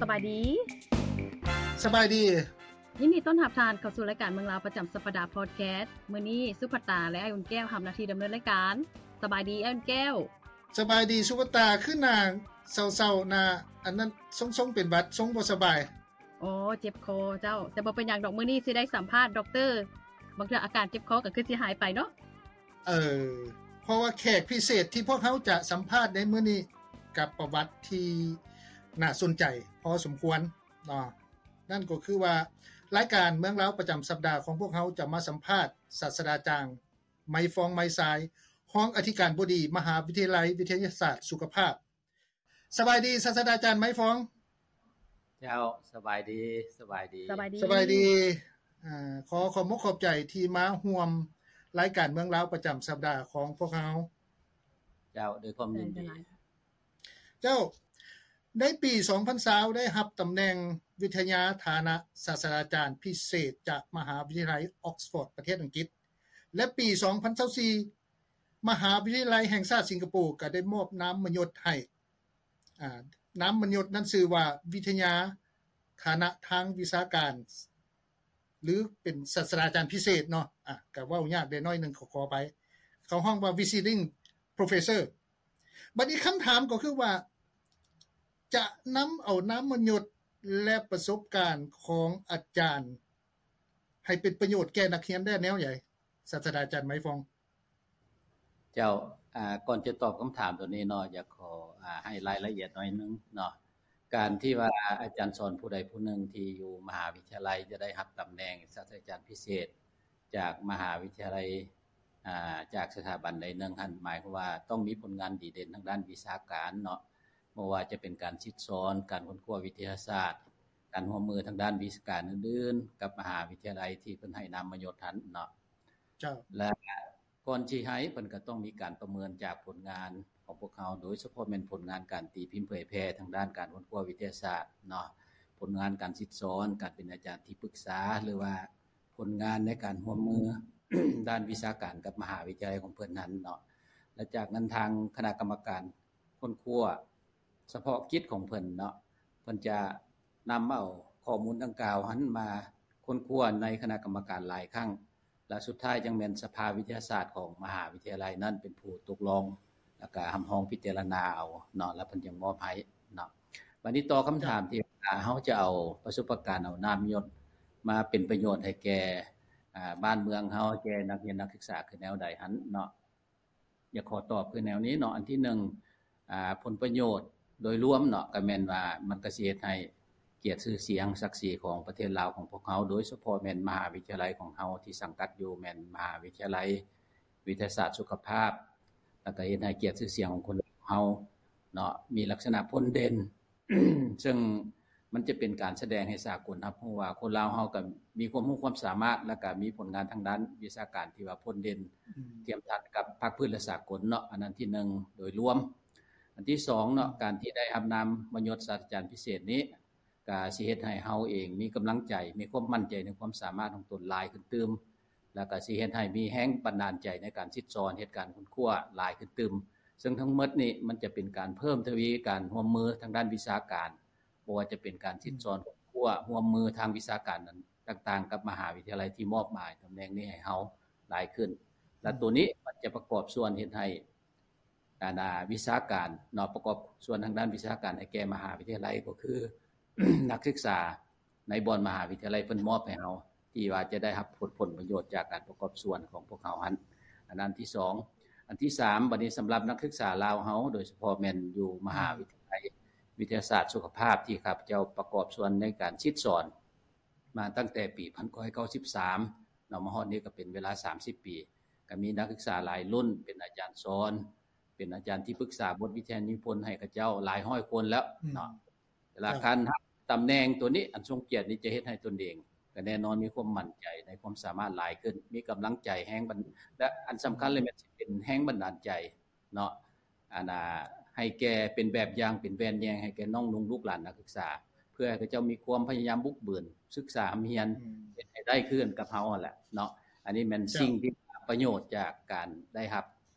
ສະບາຍດີ. ສະບາຍດີ. ຍິນດີຕ້ອນຮັບທ່ານເຂົ້າສູ່ລາຍການເມືອງລາວປະຈຳສັບປະດາພອດແຄສ. ມື້ນີ້ສຸພັດຕາ ແລະ ອ້າຍອຸ່ນແກ້ວຮັບໜ້າທີ່ດຳເນີນລາຍການ. ສະບາຍດີອ້າຍອຸ່ນແກ້ວ. ສະບາຍດີສຸພັດຕາ. ຄືໜ້າເສົ້າໆ ໜ້າອັນນັ້ນ ຊົງໆ ເປັນຫວັດ ຊົງບໍ່ສະບາຍ. ໂອ້ ເຈັບຄໍເຈົ້າ. ແຕ່ບໍ່ເປັນຫຍັງດອກ, ມື້ນີ້ຊິໄດ້ສຳພາດດັອກເຕີ ບາງເທື່ອອາການເຈັບຄໍກໍຄືຊິຫາຍໄປເນາະ. ເອີ ເພາະວ່າແຂກພິເສດທີ່ພວກເຮົາຈະສຳພາດໃນມື້ນີ້ ກັບປະຫວັດທີ່ໜ້າສົນໃຈພໍສົມຄວນເນາະ. ນັ້ນກໍຄືວ່າ ລາຍການເມືອງລາວປະຈຳສັບດາຂອງພວກເຮົາຈະມາສຳພາດສາດສະດາຈານ ໄມຟອງ ໄມຊາຍ ຮອງອະທິການບໍດີ ມະຫາວິທະຍາໄລວິທະຍາສາດສຸຂະພາບ. ສະບາຍດີ ສາດສະດາຈານ ໄມຟອງ. ເຈົ້າ ສະບາຍດີ. ສະບາຍດີ. ສະບາຍດີ. ສະບາຍດີ. ອາ ຂໍຂອບອົກຂອບໃຈທີ່ມາຮ່ວມລາຍການເມືອງລາວປະຈຳສັບດາຂອງພວກເຮົາ. ເຈົ້າ ດ້ວຍຄວາມຍິນດີ. ເຈົ້າ ໃນປີສອງພັນຊາວ ໄດ້ຮັບຕຳແໜ່ງວິທະຍາຖານະສາດສະດາຈານພິເສດຈາກມະຫາວິທະຍາໄລອອກສະຟອດ ປະເທດອັງກິດ ແລະ ປີສອງພັນຊາວສີ່ ມະຫາວິທະຍາໄລແຫ່ງຊາດສິງກະໂປກໍໄດ້ມອບນາມມະຍົດໃຫ້. ອາ ນາມມະຍົດນັ້ນຊື່ວ່າ ວິທະຍາຖານະທາງວິຊາການ ຫຼື ເປັນສາດສະດາຈານພິເສດເນາະ. ອາ ກໍເວົ້າຍາກໄດ້ໜ້ອຍໜຶ່ງ ຂໍ ຂໍອະໄພ. ເຂົາຮ້ອງວ່າ Visiting Professor. ບັດນີ້ຄຳຖາມກໍຄືວ່າ ຈະນຳເອົານາມມະຍົດ ແລະ ປະສົບການຂອງອາຈານ ໃຫ້ເປັນປະໂຫຍດແກ່ນັກຮຽນໄດ້ແນວໃດ ສາດສະດາຈານ ໄມຟອງ? ເຈົ້າ ອາ ກ່ອນຈະຕອບຄຳຖາມໂຕນີ້ເນາະ ຢາກຂໍ ອາ ໃຫ້ລາຍລະອຽດໜ້ອຍໜຶ່ງເນາະ. ການທີ່ວ່າອາຈານສອນຜູ້ໃດຜູ້ໜຶ່ງທີ່ຢູ່ມະຫາວິທະຍາໄລຈະໄດ້ຮັບຕຳແໜ່ງສາດສະດາຈານພິເສດຈາກມະຫາວິທະຍາໄລ ອາ ຈາກສະຖາບັນໃດໜຶ່ງຫັ້ນ ໝາຍຄວາມວ່າຕ້ອງມີຜົນງານດີເດັ່ນທາງດ້ານວິຊາການເນາະ, ບໍ່ວ່າຈະເປັນການສິດສອນ, ການຄົ້ນຄວ້າວິທະຍາສາດ, ການຮ່ວມມືທາງດ້ານວິຊາການອື່ນໆ ກັບມະຫາວິທະຍາໄລທີ່ເພິ່ນໃຫ້ນາມມະຍົດຫັ້ນເນາະ. ເຈົ້າ. ແລະ ກ່ອນຊິໃຫ້ ເພິ່ນກໍຕ້ອງມີການປະເມີນຈາກຜົນງານຂອງພວກເຮົາ, ໂດຍສະເພາະແມ່ນຜົນງານການຕີພິມເຜີຍແຜ່ທາງດ້ານການຄົ້ນຄວ້າວິທະຍາສາດເນາະ, ຜົນງານການສິດສອນ, ການເປັນອາຈານທີ່ປຶກສາ ຫຼືວ່າຜົນງານໃນການຮ່ວມມືດ້ານວິຊາການກັບມະຫາວິທະຍາໄລຂອງເພິ່ນນັ້ນເນາະ. ແລະ ຈາກນັ້ນທາງຄະນະກຳມະການ ຄົ້ນຄວ້າສະເພາະກິດຂອງເພິ່ນເນາະ, ເພິ່ນຈະນຳເອົາຂໍ້ມູນດັ່ງກ່າວຫັ້ນມາຄົ້ນຄວ້າໃນຄະນະກຳມະການຫຼາຍຄັ້ງ ແລະ ສຸດທ້າຍຈັ່ງແມ່ນສະພາວິທະຍາສາດຂອງມະຫາວິທະຍາໄລນັ້ນເປັນຜູ້ຕົກລົງ ແລ້ວກະຮັບຮອງພິຈາລະນາເອົາເນາະ, ແລ້ວເພິ່ນຈຶ່ງມອບໃຫ້ເນາະ. ບັດນີ້ຕໍ່ຄຳຖາມທີ່ວ່າເຮົາຈະເອົາປະສົບປະການ ເອົານາມມະຍົດມາເປັນປະໂຫຍດໃຫ້ແກ່ ອາ ບ້ານເມືອງເຮົາ, ແກ່ນັກຮຽນນັກສຶກສາຄືແນວໃດຫັ້ນເນາະ. ຢາກຂໍຕອບຄືແນວນີ້ເນາະ, ອັນທີໜຶ່ງ ອາ ຜົນປະໂຫຍດໂດຍລວມເນາະ ກໍແມ່ນວ່າມັນກໍຊິເຮັດໃຫ້ກຽດຊື່ສຽງສັກສີຂອງປະເທດລາວຂອງພວກເຮົາ, ໂດຍສະເພາະແມ່ນມະຫາວິທະຍາໄລຂອງເຮົາທີ່ສັງກັດຢູ່ແມ່ນມະຫາວິທະຍາໄລວິທະຍາສາດສຸຂະພາບ, ແລ້ວກໍເຮັດໃຫ້ກຽດຊື່ສຽງຂອງຄົນລາວເຮົາເນາະ ມີລັກສະນະພົ້ນເດັ່ນ ເຊິ່ງມັນຈະເປັນການສະແດງໃຫ້ສາກົນຮັບຮູ້ວ່າຄົນລາວເຮົາກໍມີຄວາມຮູ້ຄວາມສາມາດ ແລ້ວກໍມີຜົນງານທາງດ້ານວິຊາການທີ່ວ່າພົ້ນເດັ່ນ ອືມ ທຽບທັດກັບພາກພື້ນ ແລະ ສາກົນເນາະ. ອັນນັ້ນທີໜຶ່ງໂດຍລວມ. ອັນທີສອງເນາະ ອືມ ການທີ່ໄດ້ຮັບນາມມະຍົດສາດສະດາຈານພິເສດນີ້ ກະຊິເຮັດໃຫ້ເຮົາເອງມີກຳລັງໃຈ, ມີຄວາມໝັ້ນໃຈໃນຄວາມສາມາດຂອງຕົນຫຼາຍຂຶ້ນຕື່ມ, ແລ້ວກະຊິເຮັດໃຫ້ມີແຮງບັນດານໃຈໃນການສິດສອນ, ເຮັດການຄົ້ນຄວ້າຫຼາຍຂຶ້ນຕື່ມ. ເຊິ່ງທັງໝົດນີ້ມັນຈະເປັນການເພີ່ມທະວີການຮ່ວມມືທາງດ້ານວິຊາການ, ບໍ່ວ່າຈະເປັນການສິດສອນ, ອືມ ຄົ້ນຄວ້າ, ຮ່ວມມືທາງວິຊາການນັ້ນຕ່າງໆ ກັບມະຫາວິທະຍາໄລທີ່ມອບໝາຍຕຳແໜ່ງນີ້ໃຫ້ເຮົາຫຼາຍຂຶ້ນ. ແລະ ອືມ ໂຕນີ້ມັນຈະປະກອບສ່ວນເຮັດໃຫ້ ອັນ ອາ ວິຊາການເນາະ, ປະກອບສ່ວນທາງດ້ານວິຊາການໃຫ້ແກ່ມະຫາວິທະຍາໄລ ກໍຄື ນັກສຶກສາໃນບ່ອນມະຫາວິທະຍາໄລເພິ່ນມອບໃຫ້ເຮົາ ທີ່ວ່າຈະໄດ້ຮັບຜົນ ຜົນປະໂຫຍດຈາກການປະກອບສ່ວນຂອງພວກເຮົາຫັ້ນ. ອັນນັ້ນທີສອງ. ອັນທີສາມ ບັດນີ້ສຳລັບນັກສຶກສາລາວເຮົາ ໂດຍສະເພາະແມ່ນຢູ່ມະຫາ ອືມ ວິທະຍາໄລວິທະຍາສາດສຸຂະພາບ ທີ່ຂ້າພະເຈົ້າປະກອບສ່ວນໃນການສິດສອນ ມາຕັ້ງແຕ່ປີພັນເກົ້າຮ້ອຍເກົ້າສິບສາມເນາະ, ມາຮອດນີ້ກໍເປັນເວລາສາມສິບປີ, ກໍມີນັກສຶກສາຫຼາຍລຸ້ນເປັນອາຈານສອນ, ເປັນອາຈານທີ່ປຶກສາບົດວິທະຍານິພົນໃຫ້ເຂົາເຈົ້າຫຼາຍຮ້ອຍຄົນແລ້ວເນາະ. ອືມ ເວລາ ເຈົ້າ ການຮັບຕຳແໜ່ງໂຕນີ້ ອັນຊົງກຽດນີ້ ຈະເຮັດໃຫ້ຕົນເອງກໍແນ່ນອນມີຄວາມໝັ້ນໃຈໃນຄວາມສາມາດຫຼາຍຂຶ້ນ, ມີກຳລັງໃຈແຮງບັນ ແລະ ອັນສຳຄັນເລີຍແມ່ນຊິເປັນແຮງບັນດານໃຈ ເນາະ ອັນ ອາ ໃຫ້ແກ່ເປັນແບບຢ່າງ ເປັນແວ່ນແຍງໃຫ້ແກ່ນ້ອງນຸ່ງລູກຫຼານນັກສຶກສາ ເພື່ອໃຫ້ເຂົາເຈົ້າມີຄວາມພະຍາຍາມບຸກບືນ ສຶກສາຮ່ຳຮຽນ ອືມ ເຮັດໃຫ້ໄດ້ຄືກັນກັບເຮົາຫັ້ນແຫຼະເນາະ. ອັນນີ້ແມ່ນ ເຈົ້າ ສິ່ງທີ່ປະໂຫຍດຈາກການໄດ້ຮັບ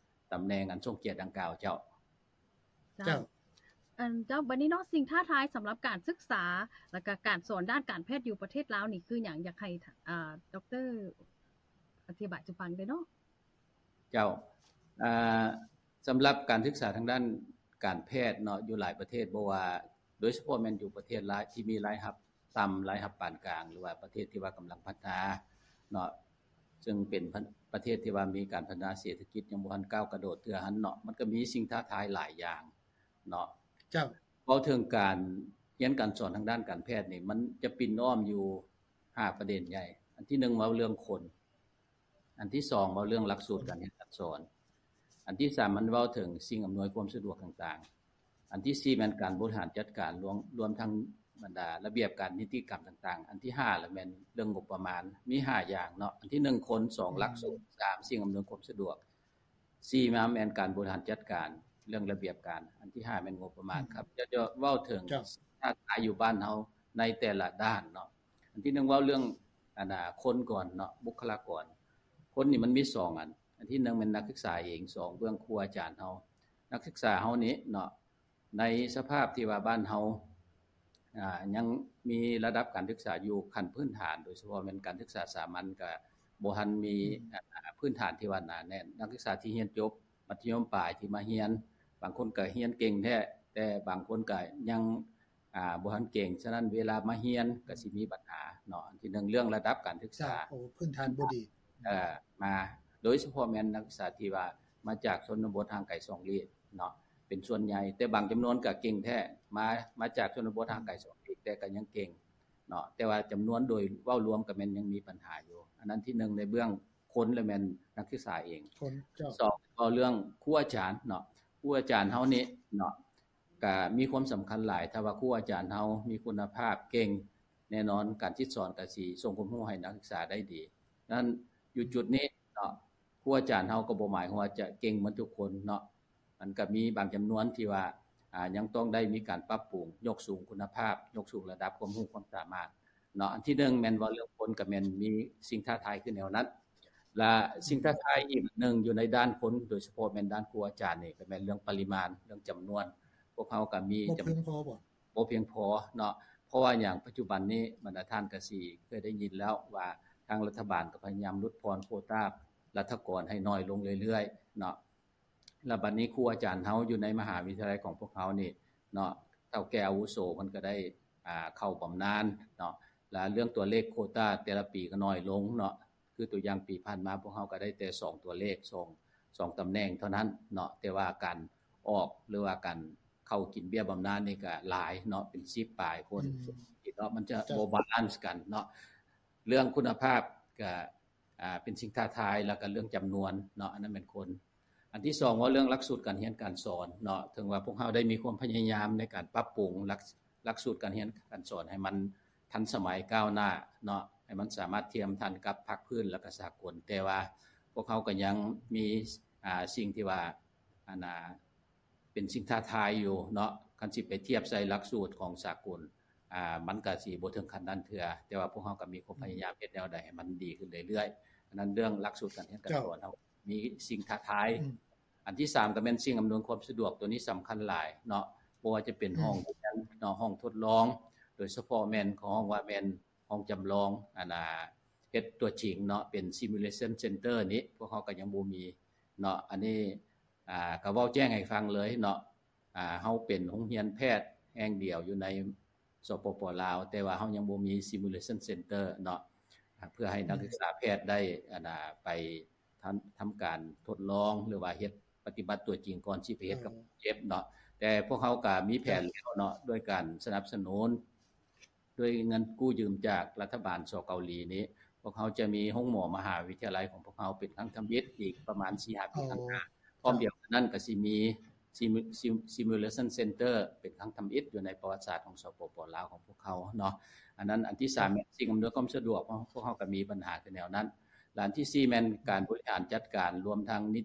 ຕຳແໜ່ງອັນຊົງກຽດດັ່ງກ່າວ. ເຈົ້າ. ເຈົ້າ. ເຈົ້າ. ອັນ ເຈົ້າ ບັດນີ້ເນາະ ສິ່ງທ້າທາຍສຳລັບການສຶກສາ ແລ້ວກະການສອນດ້ານການແພດຢູ່ປະເທດລາວນີ້ຄືຫຍັງ? ຢາກໃຫ້ ອ່າ ດອກເຕີ ອະທິບາຍສູ່ຟັງໄດ້ເນາະ. ເຈົ້າ ອ່າ ສຳລັບການສຶກສາທາງດ້ານການແພດເນາະ ຢູ່ຫຼາຍປະເທດ ບໍ່ວ່າ ໂດຍສະເພາະແມ່ນຢູ່ປະເທດລາຍ ທີ່ມີລາຍຮັບຕ່ຳ, ລາຍຮັບປານກາງ ຫຼືວ່າປະເທດທີ່ວ່າກຳລັງພັດທະນາເນາະ ເຊິ່ງເປັນປະ ປະເທດທີ່ວ່າມີການພັດທະນາເສດຖະກິດຍັງບໍ່ທັນກ້າວກະໂດດເທື່ອຫັ້ນເນາະ ມັນກໍມີສິ່ງທ້າທາຍຫຼາຍຢ່າງເນາະ. ເຈົ້າ ເວົ້າເຖິງການຮຽນການສອນທາງດ້ານການແພດນີ້ ມັນຈະປິ່ນອ້ອມຢູ່ຫ້າປະເດັນໃຫຍ່. ອັນທີໜຶ່ງເວົ້າເລື່ອງຄົນ, ອັນທີສອງເວົ້າເລື່ອງຫຼັກສູດການຮຽນການສອນ, ອັນທີສາມມັນເວົ້າເຖິງສິ່ງອຳນວຍຄວາມສະດວກຕ່າງໆ, ອັນທີສີ່ແມ່ນການບໍລິຫານຈັດການ ລວມ ລວມທັງບັນດາລະບຽບການນິຕິກຳຕ່າງໆ, ອັນທີຫ້າລະແມ່ນເລື່ອງງົບປະມານ. ມີຫ້າຢ່າງເນາະ, ອັນທີໜຶ່ງຄົນ, ສອງຫຼັກສູດ, ສາມສິ່ງອຳນວຍຄວາມສະດວກ, ສີ່ມາແມ່ນການບໍລິຫານຈັດການເລື່ອງລະບຽບການ, ອັນທີຫ້າແມ່ນງົບປະມານ. ຂ້າພະເຈົ້າຈະເວົ້າເຖິງ ເຈົ້າ ທ້າທາຍຢູ່ບ້ານເຮົາໃນແຕ່ລະດ້ານເນາະ. ອັນທີໜຶ່ງເວົ້າເລື່ອງ ອັນນ່າ ຄົນກ່ອນເນາະ, ບຸກຄະລາກອນ. ຄົນນີ້ມັນມີສອງອັນ, ອັນທີໜຶ່ງແມ່ນນັກສຶກສາເອງ, ສອງເບື້ອງຄູອາຈານເຮົາ. ນັກສຶກສາເຮົານີ້ເນາະ ໃນສະພາບທີ່ວ່າບ້ານເຮົາ ອ່າ ຍັງມີລະດັບການສຶກສາຢູ່ຂັ້ນພື້ນຖານ ໂດຍສະເພາະແມ່ນການສຶກສາສາມັນ ກະບໍ່ທັນມີ ອືມ ອ່າ ພື້ນຖານທີ່ວ່າໜາແໜ້ນ. ນັກສຶກສາທີ່ຮຽນຈົບມັດທະຍົມປາຍທີ່ມາຮຽນ ບາງຄົນກະຮຽນເກັ່ງແທ້ ແຕ່ບາງຄົນກະຍັງ ອ່າ ບໍ່ທັນເກັ່ງ. ສະນັ້ນເວລາມາຮຽນກະຊິມີບັນຫາເນາະ. ອັນທີໜຶ່ງເລື່ອງລະດັບການສຶກສາ ເຈົ້າ ໂອ້ ພື້ນຖານບໍ່ດີ ເອີ ມາ ໂດຍສະເພາະແມ່ນນັກສຶກສາທີ່ວ່າມາຈາກຊົນນະບົດຫ່າງໄກສອງຫຼີກເນາະ ເປັນສ່ວນໃຫຍ່, ແຕ່ບາງຈຳນວນກະເກັ່ງແທ້ ມາ ມາຈາກຊົນນະບົດຫ່າງໄກສອງຫຼີກ ແຕ່ກະຍັງເກັ່ງເນາະ, ແຕ່ວ່າຈຳນວນໂດຍເວົ້າລວມກະແມ່ນຍັງມີບັນຫາຢູ່. ອັນນັ້ນທີໜຶ່ງໃນເບື້ອງຄົນ ແລະແມ່ນນັກສຶກສາເອງ. ຄົນ ເຈົ້າ. ສອງເວົ້າເລື່ອງຄູອາຈານເນາະ, ຄູອາຈານເຮົານີ້ເນາະ ກະມີຄວາມສຳຄັນຫຼາຍ. ຖ້າວ່າຄູອາຈານເຮົາມີຄຸນນະພາບເກັ່ງ ແນ່ນອນການສິດສອນກະຊິສົ່ງຄວາມຮູ້ໃຫ້ນັກສຶກສາໄດ້ດີ. ນັ້ນຢູ່ຈຸດນີ້ເນາະ ຄູອາຈານເຮົາກໍບໍ່ໝາຍຄວາມວ່າຈະເກັ່ງໝົດທຸກຄົນເນາະ, ມັນກະມີບາງຈຳນວນທີ່ວ່າ ອ່າ ຍັງຕ້ອງໄດ້ມີການປັບປຸງ, ຍົກສູງຄຸນນະພາບ, ຍົກສູງລະດັບຄວາມຮູ້ຄວາມສາມາດເນາະ. ອັນທີໜຶ່ງແມ່ນເວົ້າເລື່ອງຄົນ ກະແມ່ນມີສິ່ງທ້າທາຍຄືແນວນັ້ນ. ລະສິ່ງທ້າທາຍອີກອັນໜຶ່ງຢູ່ໃນດ້ານຄົນ ໂດຍສະເພາະແມ່ນດ້ານຄູອາຈານນີ້ ກະແມ່ນເລື່ອງປະລິມານ, ເລື່ອງຈຳນວນ. ພວກເຮົາກະມີ ບໍ່ພຽງພໍບໍ່? ບໍ່ພຽງພໍເນາະ. ເພາະວ່າຫຍັງ? ປັດຈຸບັນນີ້ບັນດາທ່ານກະຊິເຄີຍໄດ້ຍິນແລ້ວວ່າ ທາງລັດຖະບານກະພະຍາຍາມຫຼຸດຜ່ອນໂຄຕາລັດຖະກອນໃຫ້ນ້ອຍລົງເລື້ອຍໆເນາະ. ລະບັດນີ້ຄູອາຈານເຮົາຢູ່ໃນມະຫາວິທະຍາໄລຂອງພວກເຮົານີ້ເນາະ ເຖົ້າແກ່ອາວຸໂສເພິ່ນກະໄດ້ ອ່າ ເຂົ້າບຳນານເນາະ, ລະເລື່ອງຕົວເລກໂຄຕາແຕ່ລະປີກະນ້ອຍລົງເນາະ. ຄືຕົວຢ່າງປີຜ່ານມາ ພວກເຮົາກະໄດ້ແຕ່ສອງຕົວເລກ ສອງ ສອງຕຳແໜ່ງເທົ່ານັ້ນເນາະ, ແຕ່ວ່າການອອກ ຫຼືວ່າການເຂົ້າກິນເບ້ຍບຳນານນີ້ກະຫຼາຍເນາະ ເປັນສິບປາຍຄົນເນາະ, ມັນຈະ ເຈົ້າ ບໍ່ບາລານກັນເນາະ. ເລື່ອງຄຸນນະພາບກະ ອ່າ ເປັນສິ່ງທ້າທາຍ ແລ້ວກະເລື່ອງຈຳນວນເນາະ ອັນນັ້ນແມ່ນຄົນ. ອັນທີສອງເວົ້າເລື່ອງຫຼັກສູດການຮຽນການສອນເນາະ, ເຖິງວ່າພວກເຮົາໄດ້ມີຄວາມພະຍາຍາມໃນການປັບປຸງຫຼັກ ຫຼັກສູດການຮຽນການສອນໃຫ້ມັນທັນສະໄໝກ້າວໜ້າເນາະ ໃຫ້ມັນສາມາດທຽມທັນກັບພາກພື້ນ ແລ້ວກະສາກົນ, ແຕ່ວ່າພວກເຮົາກະຍັງມີ ອ່າ ສິ່ງທີ່ວ່າ ອັນນ່າ ເປັນສິ່ງທ້າທາຍຢູ່ເນາະ. ຄັນຊິໄປທຽບໃສ່ຫຼັກສູດຂອງສາກົນ ອ່າ ມັນກະຊິບໍ່ເຖິງຂັ້ນນັ້ນເທື່ອ, ແຕ່ວ່າພວກເຮົາກະມີຄວາມພະຍາຍາມເຮັດແນວໃດໃຫ້ມັນດີຂຶ້ນເລື້ອຍໆ. ອັນນັ້ນເລື່ອງຫຼັກສູດການຮຽນການສອນເຮົາມີສິ່ງທ້າທາຍ. ອັນທີສາມກະແມ່ນສິ່ງອຳນວຍຄວາມສະດວກ, ໂຕນີ້ສຳຄັນຫຼາຍເນາະ, ບໍ່ວ່າຈະເປັນຫ້ອງຮຽນເນາະ, ຫ້ອງທົດລອງ, ໂດຍສະເພາະແມ່ນ ເຂົາຮ້ອງວ່າແມ່ນຫ້ອງຈຳລອງ ອັນນ່າ ເຮັດຕົວຈິງເນາະ, ເປັນ simulation center ນີ້ ພວກເຮົາກະຍັງບໍ່ມີເນາະ. ອັນນີ້ ອ່າ ກະເວົ້າແຈ້ງໃຫ້ຟັງເລີຍເນາະ, ອ່າ ເຮົາເປັນໂຮງຮຽນແພດແຫ່ງດຽວຢູ່ໃນ ສປປ ລາວ ແຕ່ວ່າເຮົາຍັງບໍ່ມີ simulation center ເນາະ ເພື່ອໃຫ້ນັກສຶກສາແພດໄດ້ ອັນນ່າ ໄປທຳ ທຳການທົດລອງ ຫຼືວ່າເຮັດປະຕິບັດຕົວຈິງກ່ອນຊິໄປເຮັດກັບຄົນເຈັບເນາະ. ແຕ່ພວກເຮົາກະມີແຜນແລ້ວເນາະ ດ້ວຍການສະໜັບສະໜູນ ດ້ວຍເງິນກູ້ຢືມຈາກລັດຖະບານ ສ ເກົາຫຼີນີ້ ພວກເຮົາຈະມີໂຮງໝໍມະຫາວິທະຍາໄລຂອງພວກເຮົາເປັນຄັ້ງທຳອິດອີກປະມານສີ່ຫ້າປີຂ້າງໜ້າ. ພ້ອມດຽວກັນນັ້ນກະຊິມີ simulation center ເປັນຄັ້ງທຳອິດຢູ່ໃນປະຫວັດສາດຂອງ ສປປ ລາວ ຂອງພວກເຮົາເນາະ. ອັນນັ້ນ ອັນທີສາມແມ່ນສິ່ງອຳນວຍຄວາມສະດວກ, ພວກເຮົາກະມີບັນຫາຄືແນວນັ້ນ. ລະອັນທີສີ່ແມ່ນການບໍລິຫານຈັດການ ລວມທັງນິ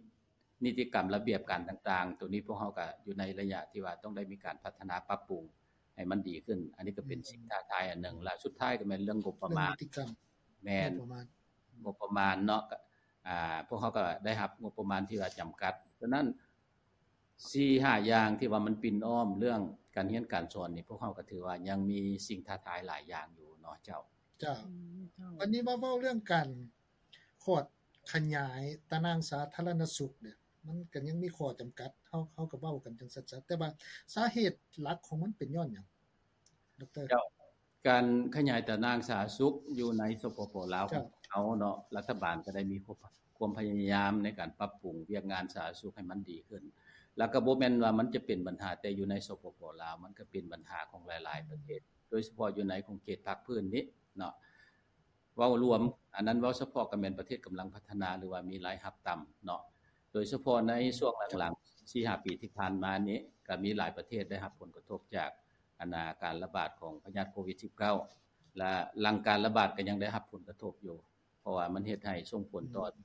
ນິຕິກຳລະບຽບການຕ່າງໆ, ໂຕນີ້ພວກເຮົາກະຢູ່ໃນໄລຍະທີ່ວ່າຕ້ອງໄດ້ມີການພັດທະນາປັບປຸງໃຫ້ມັນດີຂຶ້ນ. ອັນນີ້ກະເປັນສິ່ງທ້າທາຍອັນໜຶ່ງ. ລະສຸດທ້າຍກະແມ່ນເລື່ອງງົບປະມານ. ແມ່ນ ງົບປະມານເນາະ, ພວກເຮົາກະໄດ້ຮັບງົບປະມານທີ່ວ່າຈຳກັດ. ສະນັ້ນ ສີ່ຫ້າຢ່າງທີ່ວ່າມັນປິ່ນອ້ອມເລື່ອງ ການຮຽນການສອນນີ້ ພວກເຮົາກໍຖືວ່າຍັງມີສິ່ງທ້າທາຍຫຼາຍຢ່າງຢູ່ເນາະເຈົ້າ. ເຈົ້າ. ອືມ ເຈົ້າ. ບັດນີ້ມາເວົ້າເລື່ອງການຂອດຂະຫຍາຍຕາໜ່າງສາທາລະນະສຸກເດ້ ມັນກໍຍັງມີຂໍ້ຈຳກັດ ເຮົາ ເຮົາກໍເວົ້າກັນຈັ່ງສັດໆ ແຕ່ວ່າສາເຫດຫຼັກຂອງມັນເປັນຍ້ອນຫຍັງ ດອກເຕີ? ເຈົ້າ. ການຂະຫຍາຍຕາໜ່າງສາທາລະນະສຸກຢູ່ໃນ ສປປ ລາວ ເຈົ້າ. ຂອງເຮົາເນາະ ລັດຖະບານກໍໄດ້ມີຄວາມ ຄວາມພະຍາຍາມໃນການປັບປຸງວຽກງານສາທາລະນະສຸກໃຫ້ມັນດີຂຶ້ນ ແລ້ວກໍບໍ່ແມ່ນວ່າມັນຈະເປັນບັນຫາແຕ່ຢູ່ໃນ ສປປ ລາວ ມັນກໍເປັນບັນຫາຂອງຫຼາຍໆປະເທດ ໂດຍສະເພາະຢູ່ໃນຂົງເຂດພາກພື້ນນີ້ເນາະ. ເວົ້າລວມ ອັນນັ້ນເວົ້າສະເພາະກໍແມ່ນປະເທດກຳລັງພັດທະນາ ຫຼືວ່າມີລາຍຮັບຕ່ຳເນາະ ໂດຍສະເພາະໃນຊ່ວງຫຼັງໆ ສີ່ຫ້າປີທີ່ຜ່ານມານີ້ ກໍມີຫຼາຍປະເທດໄດ້ຮັບຜົນກະທົບຈາກ ອັນນາ ການລະບາດຂອງພະຍາດໂຄວິດສິບເກົ້າ ແລະ ຫຼັງການລະບາດກໍຍັງໄດ້ຮັບຜົນກະທົບຢູ່ ເພາະວ່າມັນເຮັດໃຫ້ສົ່ງຜົນຕໍ່ ອືມ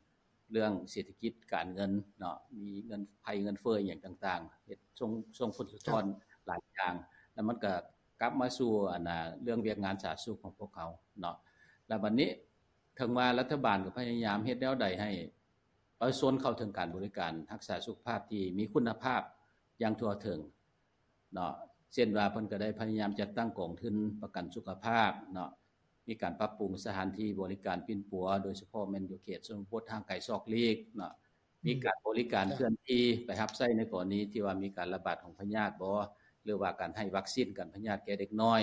ເລື່ອງເສດຖະກິດການເງິນເນາະ ມີເງິນ ໄພເງິນເຟີ້ອີ່ຫຍັງຕ່າງໆ ເຮັດ ສົ່ງ ສົ່ງຜົນສະທ້ອນ ເຈົ້າ ຫຼາຍຢ່າງ ແລ້ວມັນກໍກັບມາສູ່ ອັນນາ ເລື່ອງວຽກງານສາທາລະນະສຸກຂອງພວກເຮົາເນາະ. ແລ້ວບັດນີ້ ເຖິງວ່າລັດຖະບານກໍພະຍາຍາມເຮັດແນວໃດໃຫ້ປະຊາຊົນເຂົ້າເຖິງການບໍລິການຮັກສາສຸຂະພາບທີ່ມີຄຸນນະພາບຢ່າງທົ່ວເຖິງ ເນາະ ເຊັ່ນວ່າເພິ່ນກໍໄດ້ພະຍາຍາມຈັດຕັ້ງກອງທຶນປະກັນສຸຂະພາບເນາະ ມີການປັບປຸງສະຖານທີ່ບໍລິການປິ່ນປົວ ໂດຍສະເພາະແມ່ນຢູ່ເຂດຊົນນະບົດຫ່າງໄກສອກຫຼີກເນາະ ອືມ ມີການບໍລິການ ເຈົ້າ ເຄື່ອນທີ່ໄປຮັບໃຊ້ໃນກໍລະນີທີ່ວ່າມີການລະບາດຂອງພະຍາດບໍ ຫຼືວ່າການໃຫ້ວັກຊີນກັນພະຍາດແກ່ເດັກນ້ອຍ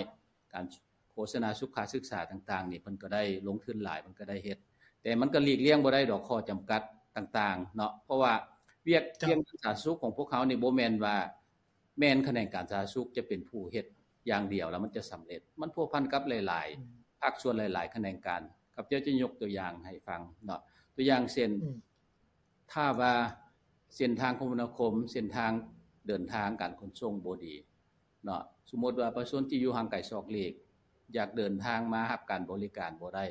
ການໂຄສະນາສຸຂະສຶກສາຕ່າງໆນີ້ ເພິ່ນກໍໄດ້ລົງທຶນຫຼາຍ ເພິ່ນກໍໄດ້ເຮັດ ແຕ່ມັນກໍຫຼີກລ່ຽງບໍ່ໄດ້ດອກຂໍ້ຈຳກັດຕ່າງໆເນາະ ເພາະວ່າວຽກ ເຈົ້າ ວຽກງານສາທາລະນະສຸກຂອງພວກເຮົານີ້ບໍ່ແມ່ນວ່າ ແມ່ນຂະແໜງການສາທາລະນະສຸກຈະເປັນຜູ້ເຮັດຢ່າງດຽວແລ້ວມັນຈະສຳເລັດ ມັນພົວພັນກັບຫຼາຍໆ ອືມ ພາກສ່ວນຫຼາຍໆຂະແໜງການ ຂ້າພະເຈົ້າຈະຍົກຕົວຢ່າງໃຫ້ຟັງເນາະ ຕົວຢ່າງເຊັ່ນ ອືມ ຖ້າວ່າເສັ້ນທາງຄົມມະນາຄົມ ເສັ້ນທາງເດີນທາງການຂົນສົ່ງບໍ່ດີເນາະ ສົມມຸດວ່າປະຊາຊົນທີ່ຢູ່ຫ່າງໄກສອກຫຼີກ ຢາກເດີນທາງມາຮັບການບໍລິການບໍ່ໄດ້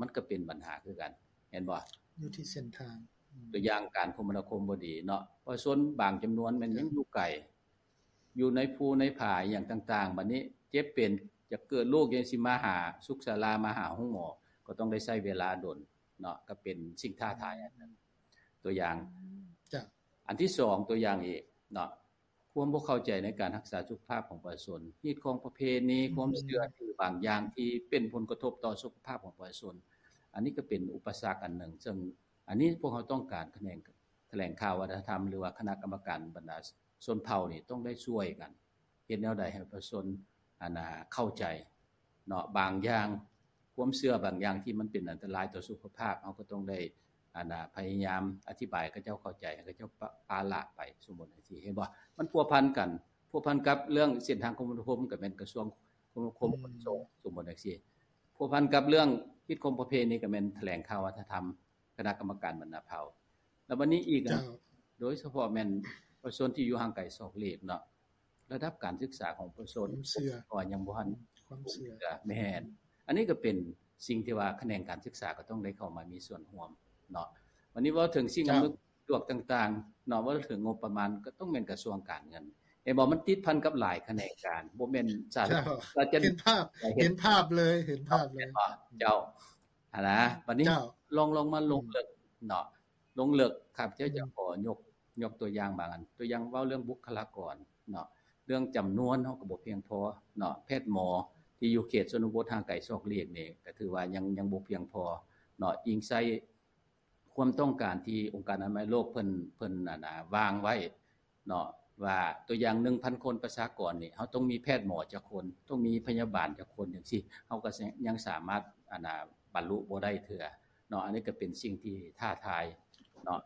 ມັນກໍເປັນບັນຫາຄືກັນ ແມ່ນບໍ່? ຢູ່ທີ່ເສັ້ນທາງ ອືມ ຕົວຢ່າງການຄົມມະນາຄົມບໍ່ດີເນາະ ປະຊາຊົນບາງຈຳນວນແມ່ນຍັງຢູ່ໄກ ຢູ່ໃນພູໃນຜາອີ່ຫຍັງຕ່າງໆ ບັດນີ້ເຈັບເປັນ ຢາກເກີດລູກ ຍັງຊິມາຫາສຸກສາລາ ມາຫາໂຮງໝໍ ກໍຕ້ອງໄດ້ໃຊ້ເວລາດົນເນາະ ກໍເປັນສິ່ງທ້າທາຍອັນໜຶ່ງ ຕົວຢ່າງ ອືມ ເຈົ້າ ອັນທີສອງ ຕົວຢ່າງອີກເນາະ ຄວາມບໍ່ເຂົ້າໃຈໃນການຮັກສາສຸຂະພາບຂອງປະຊາຊົນ ຮີດຄອງປະເພນີ ອືມ ຄວາມເຊື່ອຖືບາງຢ່າງທີ່ເປັນຜົນກະທົບຕໍ່ສຸຂະພາບຂອງປະຊາຊົນ ອັນນີ້ກໍເປັນອຸປະສັກອັນໜຶ່ງ ເຊິ່ງອັນນີ້ພວກເຮົາຕ້ອງການຂະແໜງ ຖະແຫຼງຂ່າວວັດທະນະທຳ ຫຼືວ່າຄະນະກຳມະການບັນດາຊົນເຜົ່ານີ້ຕ້ອງໄດ້ຊ່ວຍກັນ ເຮັດແນວໃດໃຫ້ປະຊາຊົນ ອັນນາ ເຂົ້າໃຈເນາະ ບາງຢ່າງ ຄວາມເຊື່ອບາງຢ່າງທີ່ມັນເປັນອັນຕະລາຍຕໍ່ສຸຂະພາບ ເຮົາກໍຕ້ອງໄດ້ ອັນນາ ພະຍາຍາມອະທິບາຍໃຫ້ເຂົາເຈົ້າເຂົ້າໃຈ ໃຫ້ເຂົາເຈົ້າປະ ປະລະໄປ ສົມມຸດຈັ່ງຊີ້ ເຫັນບໍ່? ມັນພົວພັນກັນ ພົວພັນກັບເລື່ອງເສັ້ນທາງຄົມມະນາຄົມ ກໍແມ່ນກະຊວງຄົມມະນາຄົມ ອືມ ຂົນສົ່ງ ສົມມຸດຈັ່ງຊີ້ ພົວພັນກັບເລື່ອງຮີດຄອງປະເພນີ ກໍແມ່ນຖະແຫຼງຂ່າວວັດທະນະທຳ ຄະນະກຳມະການບັນດາເຜົ່າ ແລ້ວບັດນີ້ອີກ ເຈົ້າ ໂດຍສະເພາະແມ່ນປະຊາຊົນທີ່ຢູ່ຫ່າງໄກສອກຫຼີກເນາະ ລະດັບການສຶກສາຂອງປະຊາຊົນ ຄວາມເຊື່ອ ກໍຍັງບໍ່ທັນ ຄວາມເຊື່ອ ແມ່ນ ອັນນີ້ກໍເປັນສິ່ງທີ່ວ່າຂະແໜງການສຶກສາກໍຕ້ອງໄດ້ເຂົ້າມາມີສ່ວນຮ່ວມເນາະ ບັດນີ້ເວົ້າເຖິງສິ່ງ ເຈົ້າ ອຳນວຍຄວາມສະດວກຕ່າງໆເນາະ ເວົ້າເຖິງງົບປະມານກໍຕ້ອງແມ່ນກະຊວງການເງິນ ເຫັນບໍ່? ມັນຕິດພັນກັບຫຼາຍຂະແໜງການ ບໍ່ແມ່ນສາ ເຈົ້າ ເຫັນພາບ ເຫັນພາບເລີຍ ເຫັນພາບເລີຍ ເຈົ້າ ຫັ້ນນະ ບັດນີ້ ເຈົ້າ ລອງ ລອງມາລົງເລິກເນາະ ອືມ ລົງເລິກ ຂ້າພະເຈົ້າຈະ ອືມ ຂໍຍົກ ຍົກຕົວຢ່າງບາງອັນ ຕົວຢ່າງເວົ້າເລື່ອງບຸກຄະລາກອນເນາະ ເລື່ອງຈຳນວນເຮົາກໍບໍ່ພຽງພໍເນາະ ແພດໝໍທີ່ຢູ່ເຂດຊົນນະບົດຫ່າງໄກສອກຫຼີກນີ້ ກໍຖືວ່າຍັງ ຍັງບໍ່ພຽງພໍເນາະ ອີງໃສ່ຄວາມຕ້ອງການທີ່ອົງການອະນາໄມໂລກເພິ່ນ ເພິ່ນ ອັນນາ ວາງໄວ້ ເນາະ ວ່າຕົວຢ່າງໜຶ່ງພັນຄົນປະຊາກອນນີ້ ເຮົາຕ້ອງມີແພດໝໍຈັກຄົນ ຕ້ອງມີພະຍາບານຈັກຄົນຈັ່ງຊີ້ ເຮົາກໍຍັງສາມາດ ອັນນາ ບັນລຸບໍ່ໄດ້ເທື່ອເນາະ ອັນນີ້ກໍເປັນສິ່ງທີ່ທ້າທາຍເນາະ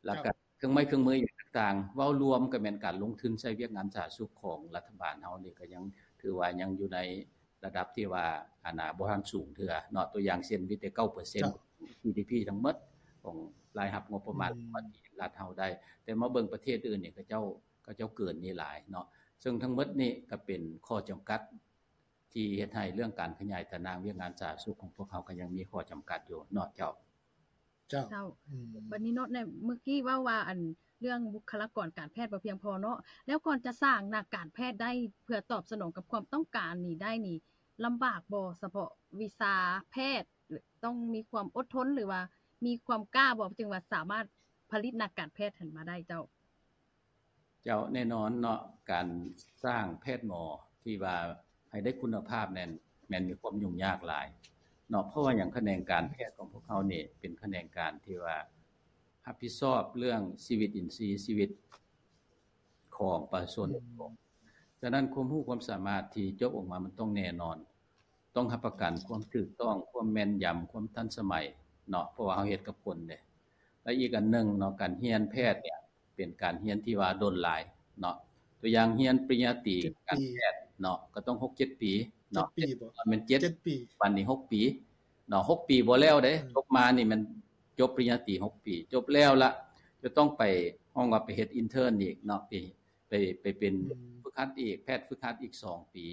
ແລ້ວກໍເຄື່ອງໄມ້ເຄື່ອງມືອີ່ຫຍັງຕ່າງໆ ເວົ້າລວມກໍແມ່ນການລົງທຶນໃສ່ວຽກງານສາທາລະນະສຸກຂອງລັດຖະບານເຮົານີ້ ກໍຍັງຖືວ່າຍັງຢູ່ໃນ ລະດັບທີ່ວ່າ ອັນນາ ບໍ່ທັນສູງເທື່ອເນາະ ຕົວຢ່າງເຊັ່ນ ມີແຕ່ເກົ້າເປີເຊັນ ເຈົ້າ ຈີດີພີທັງໝົດຂອງລາຍຮັບງົບປະມານ ອືມ ຂອງລັດເຮົາໄດ້ ແຕ່ມາເບິ່ງປະເທດອື່ນນີ້ ເຂົາເຈົ້າ ເຂົາເຈົ້າເກີນນີ້ຫຼາຍເນາະ ເຊິ່ງທັງໝົດນີ້ກໍເປັນຂໍ້ຈຳກັດທີ່ເຮັດໃຫ້ເລື່ອງການຂະຫຍາຍຕາໜ່າງວຽກງານສາທາລະນະສຸກຂອງພວກເຮົາກໍຍັງມີຂໍ້ຈຳກັດຢູ່ເນາະ ເຈົ້າ. ເຈົ້າ ເຈົ້າ ອືມ ບັດນີ້ເນາະ ໃນເມື່ອກີ້ເວົ້າວ່າ ອັນ ເລື່ອງບຸກຄະລາກອນການແພດບໍ່ພຽງພໍເນາະ ແລ້ວກ່ອນຈະສ້າງນັກການແພດໄດ້ ເພື່ອຕອບສະໜອງກັບຄວາມຕ້ອງການນີ້ໄດ້ນີ້ ລຳບາກບໍ່? ສະເພາະວິຊາແພດ ຕ້ອງມີຄວາມອົດທົນ ຫຼືວ່າມີຄວາມກ້າບໍ່ ຈຶ່ງວ່າສາມາດຜະລິດນັກການແພດຫັ້ນມາໄດ້ ເຈົ້າ? ເຈົ້າ ແນ່ນອນເນາະ ການສ້າງແພດໝໍທີ່ວ່າໃຫ້ໄດ້ຄຸນນະພາບນັ້ນ ແມ່ນມີຄວາມຫຍຸ້ງຍາກຫຼາຍເນາະ. ເພາະວ່າຫຍັງ? ຂະແໜງການແພດຂອງພວກເຮົານີ້ເປັນຂະແໜງການທີ່ວ່າຮັບຜິດຊອບເລື່ອງຊີວິດອິນຊີ ຊີວິດຂອງປະຊາຊົນ. ອືມ ສະນັ້ນ ຄວາມຮູ້ຄວາມສາມາດທີ່ຈົບອອກມາ ມັນຕ້ອງແນ່ນອນ, ຕ້ອງຮັບປະກັນຄວາມຖືກຕ້ອງ, ຄວາມແມ່ນຢຳ, ຄວາມທັນສະໄໝເນາະ ເພາະວ່າເຮົາເຮັດກັບຄົນເດ້. ແລະ ອີກອັນໜຶ່ງເນາະ ການຮຽນແພດເນີ້ຍ ເປັນການຮຽນທີ່ວ່າດົນຫຼາຍເນາະ. ຕົວຢ່າງຮຽນປະລິນຍາຕີ ເຈັດປີ ການແພດເນາະ ກໍຕ້ອງຫົກເຈັດປີເນາະ. ເຈັດປີບໍ? ແມ່ນເຈັດ ເຈັດປີ ບັດນີ້ຫົກປີເນາະ. ຫົກປີບໍ່ແລ້ວເດ້. ອືມ ຈົບມານີ້ແມ່ນຈົບປະລິນຍາຕີຫົກປີ ຈົບແລ້ວລະ ຈະຕ້ອງໄປ ຮ້ອງວ່າໄປເຮັດອິນເທີນອີກເນາະ ໄປ ໄປ ໄປເປັນ ອືມ ຝຶກຫັດອີກ ແພດຝຶກຫັດອີກສອງປີ.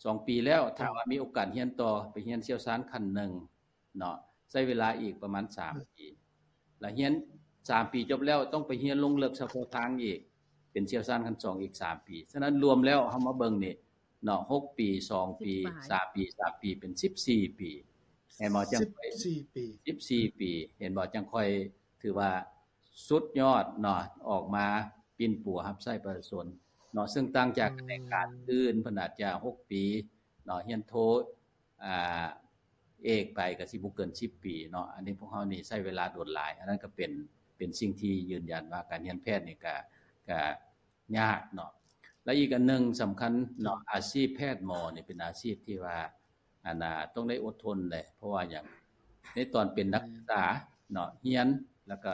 ສອງປີແລ້ວ ຖ້າວ່າມີໂອກາດຮຽນຕໍ່ ໄປຮຽນຊ່ຽວຊານຂັ້ນໜຶ່ງເນາະ ໃຊ້ເວລາອີກປະມານສາມປີ ລະຮຽນສາມປີຈົບແລ້ວ ຕ້ອງໄປຮຽນລົງເລິກສະເພາະທາງອີກ ເປັນຊ່ຽວຊານຂັ້ນສອງອີກສາມປີ. ສະນັ້ນລວມແລ້ວ ເຮົາມາເບິ່ງນີ້ເນາະ ຫົກປີ ສອງປີ ສິບປາຍ ສາມປີ ສາມປີ ເປັນສິບສີ່ປີ ເຫັນບໍ່? ຈັ່ງ ສິບສີ່ປີ ສິບສີ່ປີ ເຫັນບໍ່? ຈັ່ງຄ່ອຍຖືວ່າ ສຸດຍອດເນາະ ອອກມາປິ່ນປົວຮັບໃຊ້ປະຊາຊົນເນາະ. ເຊິ່ງຕ່າງຈາກ ອືມ ຂະແໜງການອື່ນ ເພິ່ນອາດຈະຫົກປີເນາະ ຮຽນໂທ ອາ ເອກໄປກໍຊິບໍ່ເກີນສິບປີເນາະ. ອັນນີ້ພວກເຮົານີ້ໃຊ້ເວລາດົນຫຼາຍ. ອັນນັ້ນກໍເປັນ ເປັນສິ່ງທີ່ຢືນຢັນວ່າການຮຽນແພດນີ້ກໍ ກໍຍາກເນາະ. ແລະ ອີກອັນໜຶ່ງສຳຄັນເນາະ ອືມ ອາຊີບແພດໝໍນີ້ເປັນອາຊີບທີ່ວ່າ ອັນນ່າ ຕ້ອງໄດ້ອົດທົນເດ້. ເພາະວ່າຫຍັງ? ໃນຕອນເປັນນັກສຶກສາເນາະ ຮຽນ ແລ້ວກໍ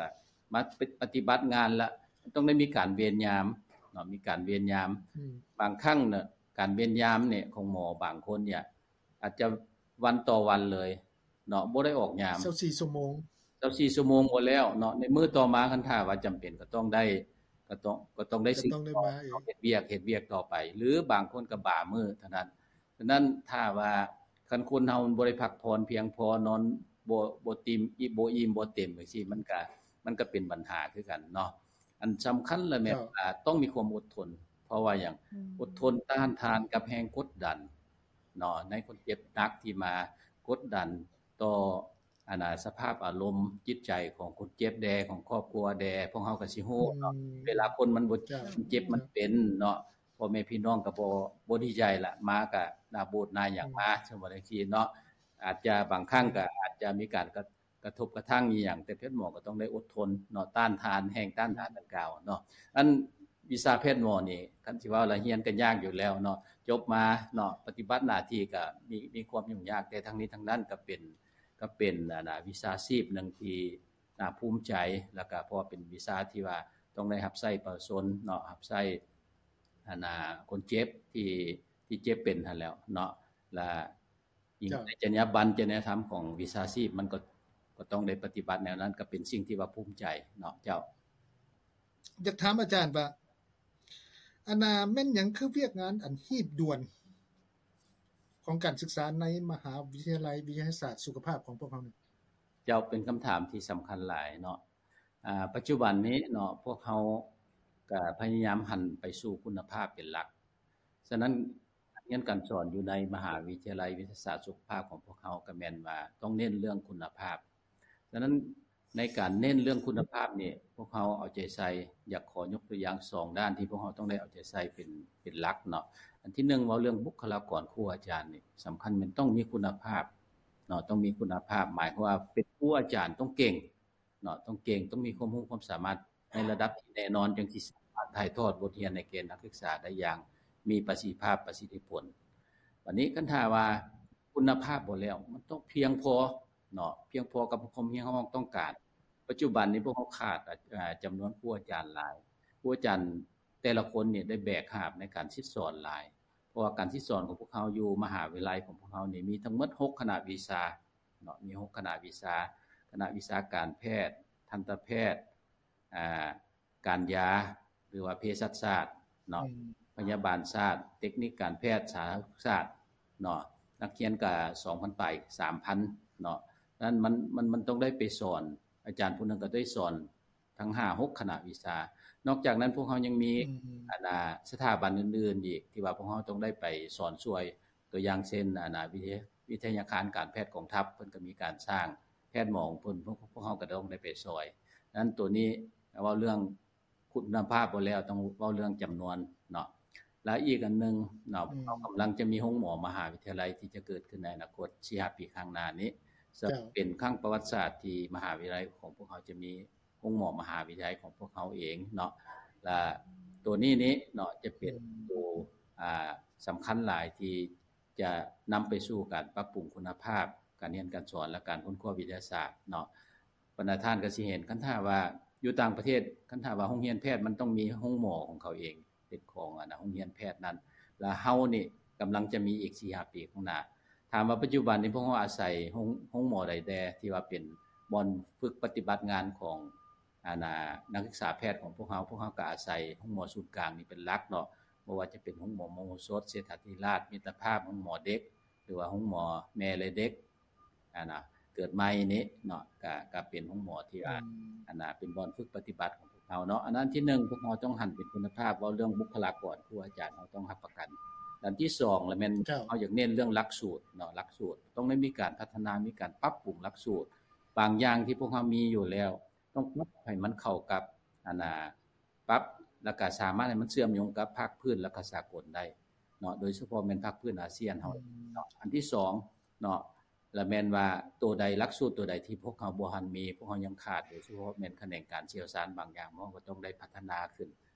ມາປະຕິບັດງານລະ ຕ້ອງໄດ້ມີການເວນຍາມເນາະ ມີການເວນຍາມ. ອືມ ບາງຄັ້ງເນາະ ການເວນຍາມນີ້ຂອງໝໍບາງຄົນນີ້ ອາດຈະວັນຕໍ່ວັນເລີຍເນາະ ບໍ່ໄດ້ອອກຍາມ ຊາວສີ່ຊົ່ວໂມງ ຊາວສີ່ຊົ່ວໂມງບໍ່ແລ້ວເນາະ. ໃນມື້ຕໍ່ມາ ຄັນຖ້າວ່າຈຳເປັນ ກໍຕ້ອງໄດ້ ກໍຕ້ອງ ກໍຕ້ອງໄດ້ ກໍຕ້ອງໄດ້ມາອີກ ເຮັດວຽກ ເຮັດວຽກຕໍ່ໄປ ຫຼືບາງຄົນກໍບາມື້ເທົ່ານັ້ນ. ສະນັ້ນ ຖ້າວ່າຄັນຄົນເຮົາມັນບໍ່ໄດ້ພັກຜ່ອນພຽງພໍ ນອນບໍ່ ບໍ່ຕິ່ມ ອີ່ມ ບໍ່ອີ່ມ ບໍ່ເຕັມຈັ່ງຊີ້ ມັນກະ ມັນກະເປັນບັນຫາຄືກັນເນາະ. ອັນສຳຄັນລະແມ່ນ ເຈົ້າ ວ່າຕ້ອງມີຄວາມອົດທົນ. ເພາະວ່າຫຍັງ? ອືມ ອົດທົນຕ້ານທານກັບແຮງກົດດັນເນາະ ໃນຄົນເຈັບໜັກທີ່ມາກົດດັນຕໍ່ ອັນນ່າ ສະພາບອາລົມຈິດໃຈຂອງຄົນເຈັບແດ່ ຂອງຄອບຄົວແດ່. ພວກເຮົາກໍຊິຮູ້ເນາະ ອືມ ເວລາຄົນມັນບໍ່ ເຈົ້າ ມັນເຈັບ ເຈົ້າ ມັນເປັນເນາະ ພໍ່ແມ່ພີ່ນ້ອງກໍບໍ່ ບໍ່ດີໃຈລະ ມາກໍໜ້າໂບດໜ້າຫຍັງມາ ອືມ ສົມມຸດຈັ່ງຊີ້ເນາະ. ອາດຈະບາງຄັ້ງກໍອາດຈະມີການກະ ກະທົບກະທັ່ງອີ່ຫຍັງ ແຕ່ແພດໝໍກໍຕ້ອງໄດ້ອົດທົນເນາະ ຕ້ານທານ ແຮງຕ້ານທານດັ່ງກ່າວເນາະ. ອັນວິຊາແພດໝໍນີ້ ຄັນຊິເວົ້າລະຮຽນກໍຍາກຢູ່ແລ້ວເນາະ ຈົບມາເນາະ ປະຕິບັດໜ້າທີ່ກໍມີ ມີຄວາມຫຍຸ້ງຍາກ ແຕ່ທັງນີ້ທັງນັ້ນກໍເປັນ ກໍເປັນ ອັນນ່າ ວິຊາຊີບໜຶ່ງທີ່ໜ້າພູມໃຈ ແລ້ວກໍເພາະວ່າເປັນວິຊາທີ່ວ່າຕ້ອງໄດ້ຮັບໃຊ້ປະຊາຊົນເນາະ ຮັບໃຊ້ ອັນນ່າ ຄົນເຈັບທີ່ ທີ່ເຈັບເປັນຫັ້ນແຫຼ້ວເນາະ ແລະ ຍິ່ງ ເຈົ້າ ໃນຈັນຍາບັນ ຈັນຍາທຳຂອງວິຊາຊີບ ມັນກໍ ກໍຕ້ອງໄດ້ປະຕິບັດແນວນັ້ນ ກໍເປັນສິ່ງທີ່ວ່າພູມໃຈເນາະ. ເຈົ້າ ຢາກຖາມອາຈານວ່າ ອັນນ່າ ແມ່ນຫຍັງຄືວຽກງານອັນຮີບດ່ວນຂອງການສຶກສາໃນມະຫາວິທະຍາໄລວິທະຍາສາດສຸຂະພາບຂອງພວກເຮົານີ້? ເຈົ້າ ເປັນຄຳຖາມທີ່ສຳຄັນຫຼາຍເນາະ. ອາ ປັດຈຸບັນນີ້ເນາະ ພວກເຮົາກະພະຍາຍາມຫັນໄປສູ່ຄຸນນະພາບເປັນຫຼັກ. ສະນັ້ນ ການຮຽນການສອນຢູ່ໃນມະຫາວິທະຍາໄລວິທະຍາສາດສຸຂະພາບຂອງພວກເຮົາ ກໍແມ່ນວ່າຕ້ອງເນັ້ນເລື່ອງຄຸນນະພາບ. ສະນັ້ນ ໃນການເນັ້ນເລື່ອງຄຸນນະພາບນີ້ ພວກເຮົາເອົາໃຈໃສ່ ຢາກຂໍຍົກຕົວຢ່າງສອງດ້ານທີ່ພວກເຮົາຕ້ອງໄດ້ເອົາໃຈໃສ່ເປັນ ເປັນຫຼັກເນາະ. ອັນທີໜຶ່ງ ເວົ້າເລື່ອງບຸກຄະລາກອນຄູອາຈານນີ້ ສຳຄັນແມ່ນຕ້ອງມີຄຸນນະພາບເນາະ ຕ້ອງມີຄຸນນະພາບ ໝາຍຄວາມວ່າເປັນຄູອາຈານຕ້ອງເກັ່ງ ເນາະ ຕ້ອງເກັ່ງ ຕ້ອງມີຄວາມຮູ້ຄວາມສາມາດໃນລະດັບທີ່ແນ່ນອນ ຈັ່ງຊິສາມາດຖ່າຍທອດບົດຮຽນໃຫ້ແກ່ນັກສຶກສາໄດ້ຢ່າງມີປະສິດທິພາບ ປະສິດທິຜົນ. ບັດນີ້ຄັນຖ້າວ່າຄຸນນະພາບບໍ່ແລ້ວ ມັນຕ້ອງພຽງພໍເນາະ ພຽງພໍກັບຄວາມຮຽກຮ້ອງຕ້ອງການ. ປັດຈຸບັນນີ້ພວກເຮົາຂາດ ອາ ຈຳນວນຄູອາຈານຫຼາຍ ຄູອາຈານແຕ່ລະຄົນນີ້ໄດ້ແບກຫາບໃນການສິດສອນຫຼາຍ ເພາະວ່າການສິດສອນຂອງພວກເຮົາຢູ່ມະຫາວິທະຍາໄລຂອງພວກເຮົານີ້ມີທັງໝົດຫົກຄະນະວິຊາ ເນາະ ມີຫົກຄະນະວິຊາ ຄະນະວິຊາການແພດ, ທັນຕະແພດ, ອາ ການຢາ ຫຼືວ່າເພສັດສາດເນາະ ອືມ ພະຍາບານສາດ, ເຕັກນິກການແພດ, ສາທາລະສຸກສາດເນາະ. ນັກຮຽນກະສອງພັນປາຍ ສາມພັນເນາະ. ນັ້ນມັນ ມັນ ມັນຕ້ອງໄດ້ໄປສອນ ອາຈານຜູ້ໜຶ່ງກໍໄດ້ສອນທັງຫ້າຫົກຄະນະວິຊາ. ນອກຈາກນັ້ນພວກເຮົາຍັງມີ ອືມ ອັນ ອາ ສະຖາບັນອື່ນໆອີກ ທີ່ວ່າພວກເຮົາຕ້ອງໄດ້ໄປສອນຊ່ວຍ ຕົວຢ່າງເຊັ່ນ ອັນນ່າ ວິທະຍາ ວິທະຍາຄານການແພດກອງທັບ ເພິ່ນກໍມີການສ້າງແພດໝໍຂອງເພິ່ນ ພວກ ພວກເຮົາກໍຕ້ອງໄດ້ໄປຊ່ອຍ. ນັ້ນໂຕນີ້ເວົ້າເລື່ອງ ຄຸນນະພາບບໍ່ແລ້ວ ຕ້ອງເວົ້າເລື່ອງຈຳນວນເນາະ. ແລະ ອີກອັນໜຶ່ງເນາະ ອືມ ເຮົາກຳລັງຈະມີໂຮງໝໍມະຫາວິທະຍາໄລທີ່ຈະເກີດຂຶ້ນໃນອະນາຄົດສີ່ຫ້າປີຂ້າງໜ້ານີ້ ເຊິ່ງ ເຈົ້າ ເປັນຄັ້ງປະຫວັດສາດທີ່ມະຫາວິທະຍາໄລຂອງພວກເຮົາຈະມີໂຮງໝໍມະຫາວິທະຍາໄລຂອງພວກເຮົາເອງເນາະ. ແລະ ໂຕນີ້ນີ້ເນາະ ຈະເປັນ ອືມ ໂຕ ອ່າ ສຳຄັນຫຼາຍທີ່ ຈະນຳໄປສູ່ການປັບປຸງຄຸນນະພາບການຮຽນການສອນ ແລະ ການຄົ້ນຄວ້າວິທະຍາສາດເນາະ. ບັນດາທ່ານກໍຊິເຫັນ ຄັນຖ້າວ່າຢູ່ຕ່າງປະເທດ ຄັນຖ້າວ່າໂຮງຮຽນແພດມັນຕ້ອງມີໂຮງໝໍຂອງເຂົາເອງ ເປັນຂອງອັນນະໂຮງຮຽນແພດນັ້ນ ແລະ ເຮົານີ້ກຳລັງຈະມີອີກສີ່ຫ້າປີຂ້າງໜ້າ. ຖາມວ່າປັດຈຸບັນນີ້ພວກເຮົາອາໄສໂຮງ ໂຮງໝໍໃດແດ່ທີ່ວ່າເປັນບ່ອນຝຶກປະຕິບັດງານຂອງ ອັນນະ ນັກສຶກສາແພດຂອງພວກເຮົາ ພວກເຮົາກໍອາໄສໂຮງໝໍສູນກາງນີ້ເປັນຫຼັກເນາະ ບໍ່ວ່າຈະເປັນໂຮງໝໍມະໂຫສົດ, ເສດຖາທິລາດ, ມິດຕະພາບ, ໂຮງໝໍເດັກ ຫຼືວ່າໂຮງໝໍແມ່ ແລະ ເດັກ ອັນນະ ເກີດໃໝ່ນີ້ເນາະ ກະ ກະເປັນໂຮງໝໍທີ່ວ່າ ອືມ ອັນນະ ເປັນບ່ອນຝຶກປະຕິບັດຂອງພວກເຮົາເນາະ. ອັນນັ້ນທີໜຶ່ງ ພວກເຮົາຕ້ອງຫັນເປັນຄຸນນະພາບ ເວົ້າເລື່ອງບຸກຄະລາກອນ ຄູອາຈານເຮົາຕ້ອງຮັບປະກັນ. ອັນທີສອງລະແມ່ນ ເຈົ້າ ເຮົາຢາກເນັ້ນເລື່ອງຫຼັກສູດເນາະ ຫຼັກສູດ ຕ້ອງໄດ້ມີການພັດທະນາ ມີການປັບປຸງຫຼັກສູດ ບາງຢ່າງທີ່ພວກເຮົາມີຢູ່ແລ້ວ ຕ້ອງປັບໃຫ້ມັນເຂົ້າກັບ ອັນນະ ປັບ ແລ້ວກະສາມາດໃຫ້ມັນເຊື່ອມໂຍງກັບພາກພື້ນ ແລ້ວກະສາກົນໄດ້ເນາະ ໂດຍສະເພາະແມ່ນພາກພື້ນອາຊຽນເຮົາ ອືມ ເນາະ. ອັນທີສອງເນາະ ລະແມ່ນວ່າໂຕໃດ ຫຼັກສູດໂຕໃດທີ່ພວກເຮົາບໍ່ທັນມີ ພວກເຮົາຍັງຂາດ ໂດຍສະເພາະແມ່ນຂະແໜງການຊ່ຽວຊານບາງຢ່າງ ເຮົາກໍຕ້ອງໄດ້ພັດທະນາຂຶ້ນ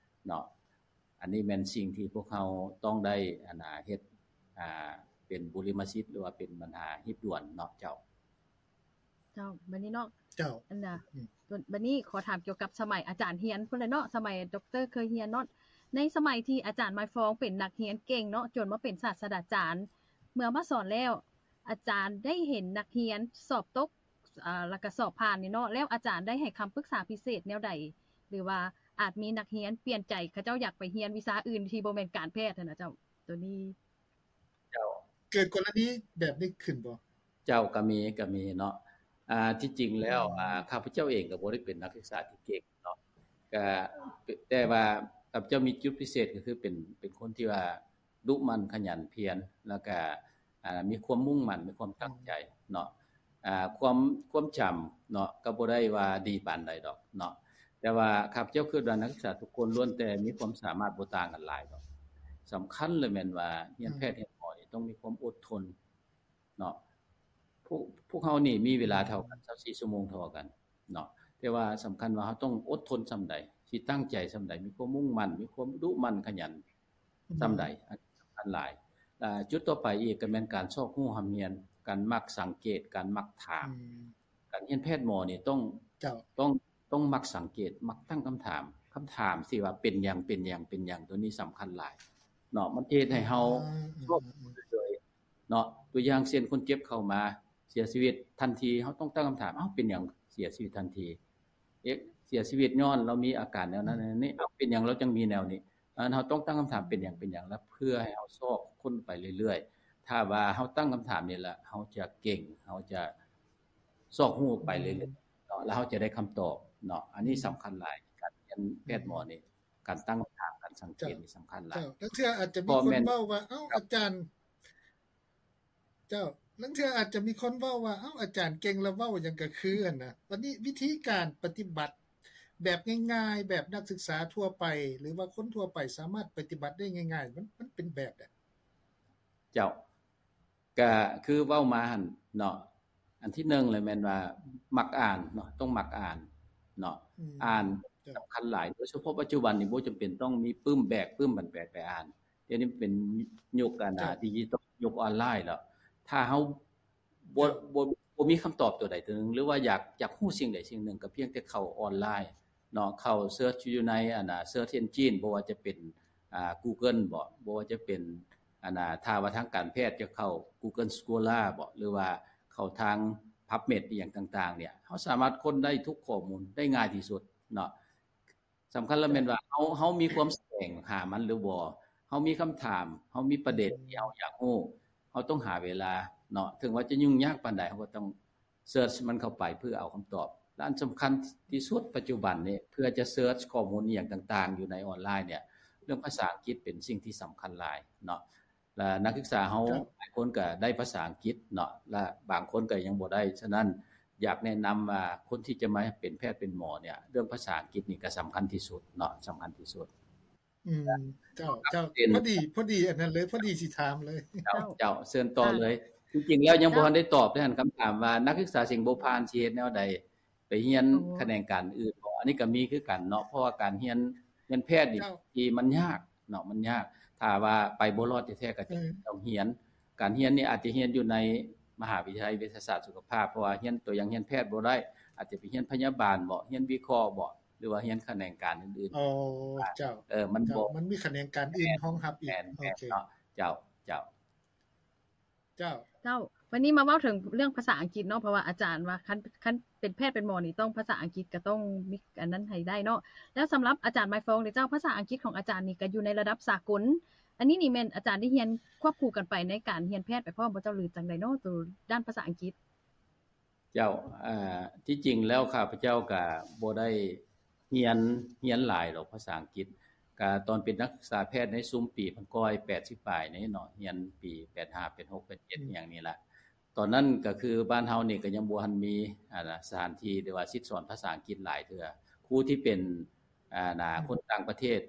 ເນາະ. ອັນນີ້ແມ່ນສິ່ງທີ່ພວກເຮົາຕ້ອງໄດ້ ອັນນະ ເຮັດ ອ່າ ເປັນບຸລິມະສິດ ຫຼືວ່າເປັນບັນຫາຮີບດ່ວນເນາະ ເຈົ້າ. ເຈົ້າ ບັດນີ້ເນາະ ເຈົ້າ ອັນນະ ອືມ ບັດນີ້ຂໍຖາມກ່ຽວກັບສະໄໝອາຈານຮຽນພຸ້ນແຫຼະເນາະ ສະໄໝດັອກເຕີເຄີຍຮຽນເນາະ ໃນສະໄໝທີ່ອາຈານໝາຍຟອງເປັນນັກຮຽນເກັ່ງເນາະ ຈົນມາເປັນສາດສະດາຈານ ເມື່ອມາສອນແລ້ວ ອາຈານໄດ້ເຫັນນັກຮຽນສອບຕົກ ອາ ແລ້ວກະສອບຜ່ານນີ້ເນາະ ແລ້ວອາຈານໄດ້ໃຫ້ຄຳປຶກສາພິເສດແນວໃດ ຫຼືວ່າອາດມີນັກຮຽນປ່ຽນໃຈ ເຂົາເຈົ້າຢາກໄປຮຽນວິຊາອື່ນທີ່ບໍ່ແມ່ນການແພດຫັ້ນນະເຈົ້າ ໂຕນີ້ ເຈົ້າ ເກີດກໍລະນີແບບນີ້ຂຶ້ນບໍ່? ເຈົ້າ ກໍມີ ກໍມີເນາະ ອ່າ ທີ່ຈິງແລ້ວ ອືມ ອ່າ ຂ້າພະເຈົ້າເອງກໍບໍ່ໄດ້ເປັນນັກສຶກສາທີ່ເກັ່ງເນາະ ກະ ແຕ່ວ່າຂ້າພະເຈົ້າມີຈຸດພິເສດ ກໍຄືເປັນ ເປັນຄົນທີ່ວ່າດຸໝັ່ນຂະຫຍັນພຽນ ແລ້ວກະ ອ່າ ມີຄວາມມຸ່ງໝັ້ນ ມີຄວາມຕັ້ງໃຈເນາະ ອ່າ ຄວາມ ຄວາມຈຳເນາະ ກໍບໍ່ໄດ້ວ່າດີປານໃດດອກເນາະ ແຕ່ວ່າຂ້າພະເຈົ້າຄິດວ່ານັກສຶກສາທຸກຄົນລ້ວນແຕ່ມີຄວາມສາມາດ ບໍ່ຕ່າງກັນຫຼາຍດອກ. ສຳຄັນເລີຍແມ່ນວ່າຮຽນແພດ ອືມ ຮຽນໝໍນີ້ຕ້ອງມີຄວາມອົດທົນເນາະ. ພວກ ພວກເຮົານີ້ມີເວລາເທົ່າກັນ ຊາວສີ່ຊົ່ວໂມງເທົ່າກັນເນາະ ແຕ່ວ່າສຳຄັນວ່າເຮົາຕ້ອງອົດທົນສ່ຳໃດ ຊິຕັ້ງໃຈສ່ຳໃດ ມີຄວາມມຸ່ງໝັ້ນ ມີຄວາມດຸໝັ່ນຂະຫຍັນ ອືມ ສ່ຳໃດ ອັນນີ້ສຳຄັນຫຼາຍ. ແລະ ຈຸດຕໍ່ໄປອີກກໍແມ່ນການຊອກຮູ້ຮ່ຳຮຽນ ການມັກສັງເກດ ການມັກຖາມ ອືມ ການຮຽນແພດໝໍນີ້ຕ້ອງ ເຈົ້າ ຕ້ອງ ຕ້ອງມັກສັງເກດ ມັກຕັ້ງຄຳຖາມ ຄຳຖາມທີ່ວ່າເປັນຫຍັງ ເປັນຫຍັງ ເປັນຫຍັງ ໂຕນີ້ສຳຄັນຫຼາຍເນາະ ມັນຈະເຮັດໃຫ້ເຮົາ ອືມ ຊອກເລີຍເນາະ. ຕົວຢ່າງເຊັ່ນ ຄົນເຈັບເຂົ້າມາເສຍຊີວິດທັນທີ ເຮົາຕ້ອງຕັ້ງຄຳຖາມ ເອົ້າ ເປັນຫຍັງເສຍຊີວິດທັນທີ? ເອະ ເສຍຊີວິດຍ້ອນລາວມີອາການແນວນັ້ນແນວນີ້ ເອົ້າ ເປັນຫຍັງລາວຈັ່ງມີແນວນີ້? ອັນນັ້ນເຮົາຕ້ອງຕັ້ງຄຳຖາມ ເປັນຫຍັງ ເປັນຫຍັງ ແລ້ວເພື່ອໃຫ້ເຮົາຊອກຄົ້ນໄປເລື້ອຍໆ. ຖ້າວ່າເຮົາຕັ້ງຄຳຖາມນີ້ລະ ເຮົາຈະເກັ່ງ ເຮົາຈະຊອກຮູ້ໄປເລື້ອຍໆເນາະ ແລ້ວເຮົາຈະໄດ້ຄຳຕອບເນາະ. ອັນນີ້ສຳຄັນຫຼາຍ ການຮຽນແພດໝໍນີ້ ການຕັ້ງຄຳຖາມ ການສັງເກດນີ້ສຳຄັນຫຼາຍ. ເຈົ້າ ລາງເທື່ອອາດຈະມີຄົນເວົ້າວ່າ ເອົ້າ ອາຈານ ເຈົ້າ ລາງເທື່ອອາດຈະມີຄົນເວົ້າວ່າ ເອົ້າ ອາຈານເກັ່ງລະເວົ້າຫຍັງກະຄືຫັ້ນນະ. ບັດນີ້ວິທີການປະຕິບັດແບບງ່າຍໆ ແບບນັກສຶກສາທົ່ວໄປ ຫຼືວ່າຄົນທົ່ວໄປສາມາດປະຕິບັດໄດ້ງ່າຍໆ ມັນ ມັນເປັນແບບໃດ? ເຈົ້າ ກະຄືເວົ້າມາຫັ້ນເນາະ ອັນທີໜຶ່ງເລີຍແມ່ນວ່າມັກອ່ານເນາະ ຕ້ອງມັກອ່ານເນາະ ອືມ ອ່ານ ເຈົ້າ ສຳຄັນຫຼາຍ ໂດຍສະເພາະປັດຈຸບັນນີ້ບໍ່ຈຳເປັນຕ້ອງມີປຶ້ມແບກປຶ້ມບັນແບກໄປອ່ານ. ດຽວນີ້ເປັນຍຸກອັນນະ ເຈົ້າ ດິຈິຕອນ ຍຸກອອນລາຍແລ້ວ ຖ້າເຮົາບໍ່ ເຈົ້າ ບໍ່ ບໍ່ມີຄຳຕອບໂຕໃດໂຕໜຶ່ງ ຫຼືວ່າຢາກ ຢາກຮູ້ສິ່ງໃດສິ່ງໜຶ່ງ ກໍພຽງແຕ່ເຂົ້າອອນລາຍເນາະ ເຂົ້າເສີດຢູ່ໃນອັນນະ ເສີດເອັນຈິນ ບໍ່ວ່າຈະເປັນ ອ່າ ກູເກີນບໍ ບໍ່ວ່າຈະເປັນ ອັນນະ ຖ້າວ່າທາງການແພດຈະເຂົ້າ Google Scholar ບໍ ຫຼືວ່າເຂົ້າທາງ PubMed ອີ່ຫຍັງຕ່າງໆ ເນຍ ເຮົາສາມາດຄົ້ນໄດ້ທຸກຂໍ້ມູນໄດ້ງ່າຍທີ່ສຸດເນາະ. ສຳຄັນລະແມ່ນວ່າເຮົາ ເຮົາມີຄວາມສະແຫວງຫາມັນຫຼືບໍ່ ເຮົາມີຄຳຖາມ ເຮົາມີປະເດັນທີ່ເຮົາຢາກຮູ້ ເຮົາຕ້ອງຫາເວລາເນາະ ເຖິງວ່າຈະຫຍຸ້ງຍາກປານໃດ ເຮົາກໍຕ້ອງ ເສີດມັນເຂົ້າໄປເພື່ອເອົາຄຳຕອບ ແລະ ອັນສຳຄັນທີ່ສຸດປັດຈຸບັນນີ້ ເພື່ອຈະເສີດຂໍ້ມູນອີ່ຫຍັງຕ່າງໆ ຢູ່ໃນອອນລາຍເນຍ ເລື່ອງພາສາອັງກິດເປັນສິ່ງທີ່ສຳຄັນຫຼາຍເນາະ ແລະ ນັກສຶກສາເຮົາ ເຈົ້າ ຫຼາຍຄົນກໍໄດ້ພາສາອັງກິດເນາະ ແລະ ບາງຄົນກໍຍັງບໍ່ໄດ້. ສະນັ້ນ ຢາກແນະນຳວ່າຄົນທີ່ຈະມາເປັນແພດເປັນໝໍເນ່ຍ ເລື່ອງພາສາອັງກິດນີ້ກໍສຳຄັນທີ່ສຸດເນາະ ສຳຄັນທີ່ສຸດ. ອືມ ເຈົ້າ ເຈົ້າ ເປັນ ພໍດີ ພໍດີອັນນັ້ນເລີຍ ພໍດີຊິຖາມເລີຍ. ເຈົ້າ ເຈົ້າ ເຊີນຕໍ່ເລີຍ. ເຈົ້າ ທີ່ຈິງແລ້ວຍັງ ເຈົ້າ ບໍ່ທັນໄດ້ຕອບເດ້ຫັ້ນ ຄຳຖາມວ່ານັກສຶກສາສິງໂບພານຊິເຮັດແນວໃດ? ໄປຮຽນ ໂອ້ ຂະແໜງການອື່ນບໍ່? ອັນນີ້ກໍມີຄືກັນເນາະ ເພາະວ່າການຮຽນ ຮຽນແພດນີ້ ເຈົ້າ ທີ່ມັນຍາກເນາະ ມັນຍາກ. ຖ້າວ່າໄປບໍ່ລອດແທ້ໆ ກໍຈະ ເອີ ຕ້ອງຮຽນ. ການຮຽນນີ້ອາດຈະຮຽນຢູ່ໃນມະຫາວິທະຍາໄລເວຊະສາດສຸຂະພາບ ເພາະວ່າຮຽນ ຕົວຢ່າງຮຽນແພດບໍ່ໄດ້ ອາດຈະໄປຮຽນພະຍາບານບໍ ຮຽນວິເຄາະບໍ ຫຼືວ່າຮຽນຂະແໜງການອື່ນໆ. ໂອ້ ເຈົ້າ ເອີ ມັນ ເຈົ້າ ບໍ່ ມັນມີຂະແໜງການອື່ນຮອງຮັບອີກ. ແມ່ນ ໂອເຄ ເນາະ ເຈົ້າ ເຈົ້າ. ເຈົ້າ ເຈົ້າ ບາດນີ້ມາເວົ້າເຖິງເລື່ອງພາສາອັງກິດເນາະ ເພາະວ່າອາຈານວ່າຄັນ ຄັນເປັນແພດເປັນໝໍນີ້ຕ້ອງພາສາອັງກິດ ກໍຕ້ອງມີອັນນັ້ນໃຫ້ໄດ້ເນາະ. ແລ້ວສຳລັບອາຈານໄມຟອງເດເຈົ້າ ພາສາອັງກິດຂອງອາຈານນີ້ກໍຢູ່ໃນລະດັບສາກົນ ອັນນີ້ນີ້ແມ່ນອາຈານໄດ້ຮຽນຄວບຄູ່ກັນໄປໃນການຮຽນແພດໄປພ້ອມບໍ່ເຈົ້າ ຫຼື ຈັ່ງໃດເນາະ ໂຕດ້ານພາສາອັງກິດ? ເຈົ້າ ເອີ ທີ່ຈິງແລ້ວຂ້າພະເຈົ້າກໍບໍ່ໄດ້ ຮຽນ ຮຽນຫຼາຍດອກພາສາອັງກິດ ກະຕອນເປັນນັກສຶກສາແພດໃນຊຸມປີພັນເກົ້າຮ້ອຍແປດສິບປາຍນີ້ເນາະ ຮຽນປີແປດຫ້າ ແປດຫົກ ແປດເຈັດ ອືມ ອີ່ຫຍັງນີ້ລະ. ຕອນນັ້ນກໍຄືບ້ານເຮົານີ້ກໍຍັງບໍ່ທັນມີ ອັນນະ ສະຖານທີ່ ຫຼືວ່າສິດສອນພາສາອັງກິດຫຼາຍເທື່ອ. ຄູທີ່ເປັນ ອັນນະ ອືມ ຄົນຕ່າງປະເທດ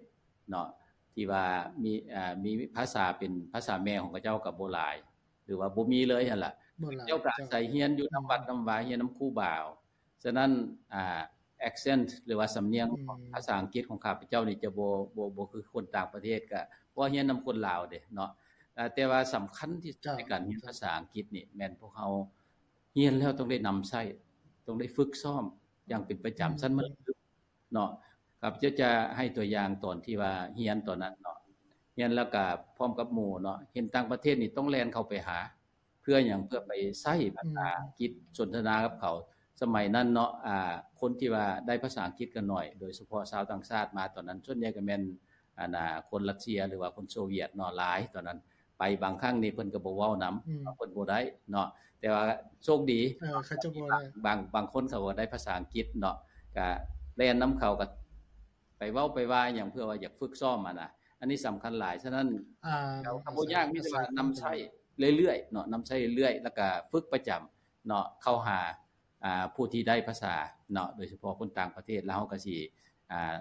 ເນາະ ທີ່ວ່າມີ ເອີ ມີພາສາເປັນພາສາແມ່ຂອງເຂົາເຈົ້າກໍບໍ່ຫຼາຍ ຫຼືວ່າບໍ່ມີເລີຍຫັ້ນລະ. ເຂົາເຈົ້າກໍອາໄສຮຽນຢູ່ນຳວັດນຳວາ ຮຽນນຳຄູບາເອົາ. ສະນັ້ນ ອ່າ ແອັກເຊັນ ຫຼືວ່າສຳນຽງ ອືມ ຂອງພາສາອັງກິດຂອງຂ້າພະເຈົ້ານີ້ຈະບໍ່ ບໍ່ ບໍ່ຄືຄົນຕ່າງປະເທດ ກະເພາະຮຽນນຳຄົນລາວເດ້ເນາະ. ແຕ່ວ່າສຳຄັນທີ່ສຸດ ເຈົ້າ ໃນການຮຽນພາສາອັງກິດນີ້ ແມ່ນພວກເຮົາຮຽນແລ້ວຕ້ອງໄດ້ນຳໃຊ້ ຕ້ອງໄດ້ຝຶກຊ້ອມຢ່າງເປັນປະຈຳ ອືມ ຊັ້ນມັນເນາະ. ຂ້າພະເຈົ້າຈະໃຫ້ຕົວຢ່າງຕອນທີ່ວ່າຮຽນຕອນນັ້ນເນາະ ຮຽນແລ້ວກະພ້ອມກັບໝູ່ເນາະ ເຫັນຕ່າງປະເທດນີ້ຕ້ອງແລ່ນເຂົ້າໄປຫາ ເພື່ອຫຍັງ? ເພື່ອໄປໃຊ້ພາສາອັງກິດ ອືມ ສົນທະນາກັບເຂົາ. ສະໄໝນັ້ນເນາະ ອ່າ ຄົນທີ່ວ່າໄດ້ພາສາອັງກິດກໍໜ້ອຍ ໂດຍສະເພາະຊາວຕ່າງຊາດມາຕອນນັ້ນ ສ່ວນໃຫຍ່ກໍແມ່ນ ອັນນະ ຄົນຣັດເຊຍ ຫຼືວ່າຄົນໂຊວຽດເນາະ ຫຼາຍຕອນນັ້ນ. ໄປບາງຄັ້ງນີ້ເພິ່ນກໍບໍ່ເວົ້ານຳ ອືມ ເພິ່ນບໍ່ໄດ້ເນາະ ແຕ່ວ່າໂຊກດີ ເອີ ເຂົາເຈົ້າບໍ່ໄດ້ ບາງ ບາງຄົນເຂົາກໍໄດ້ພາສາອັງກິດເນາະ ກໍແລ່ນນຳເຂົາ ກໍໄປເວົ້າໄປວ່າຫຍັງ ເພື່ອວ່າຢາກຝຶກຊ້ອມຫັ້ນນະ. ອັນນີ້ສຳຄັນຫຼາຍ. ສະນັ້ນ ອ່າ ກໍບໍ່ຍາກ ມີແຕ່ວ່ານຳໃຊ້ເລື້ອຍໆເນາະ ນຳໃຊ້ເລື້ອຍໆ ແລ້ວກໍຝຶກປະຈຳເນາະ ເຂົ້າຫາ ອ່າ ຜູ້ທີ່ໄດ້ພາສາເນາະ ໂດຍສະເພາະຄົນຕ່າງປະເທດ ແລ້ວເຮົາກໍຊິ ອ່າ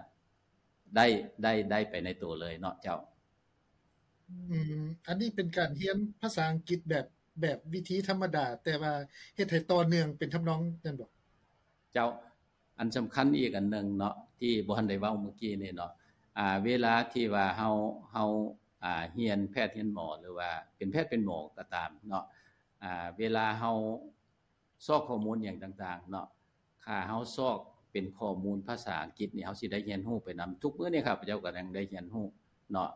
ໄດ້ ໄດ້ ໄດ້ໄປໃນໂຕເລີຍເນາະເຈົ້າ. ອືມ ອັນນີ້ເປັນການຮຽນພາສາອັງກິດແບບ ແບບວິທີທຳມະດາ ແຕ່ວ່າເຮັດໃຫ້ຕໍ່ເນື່ອງເປັນທຳນອງນັ້ນບໍ? ເຈົ້າ ອັນສຳຄັນອີກອັນໜຶ່ງເນາະ ທີ່ບໍ່ທັນໄດ້ເວົ້າມື້ກີ້ນີ້ເນາະ ອ່າ ເວລາທີ່ວ່າເຮົາ ເຮົາ ອ່າ ຮຽນແພດຮຽນໝໍ ຫຼືວ່າເປັນແພດເປັນໝໍກໍຕາມເນາະ ອ່າ ເວລາເຮົາ ຊອກຂໍ້ມູນຫຍັງຕ່າງໆເນາະ ຖ້າເຮົາຊອກເປັນຂໍ້ມູນພາສາອັງກິດນີ້ ເຮົາຊິໄດ້ຮຽນຮູ້ໄປນຳ. ທຸກມື້ນີ້ຂ້າພະເຈົ້າກໍຍັງໄດ້ຮຽນຮູ້ເນາະ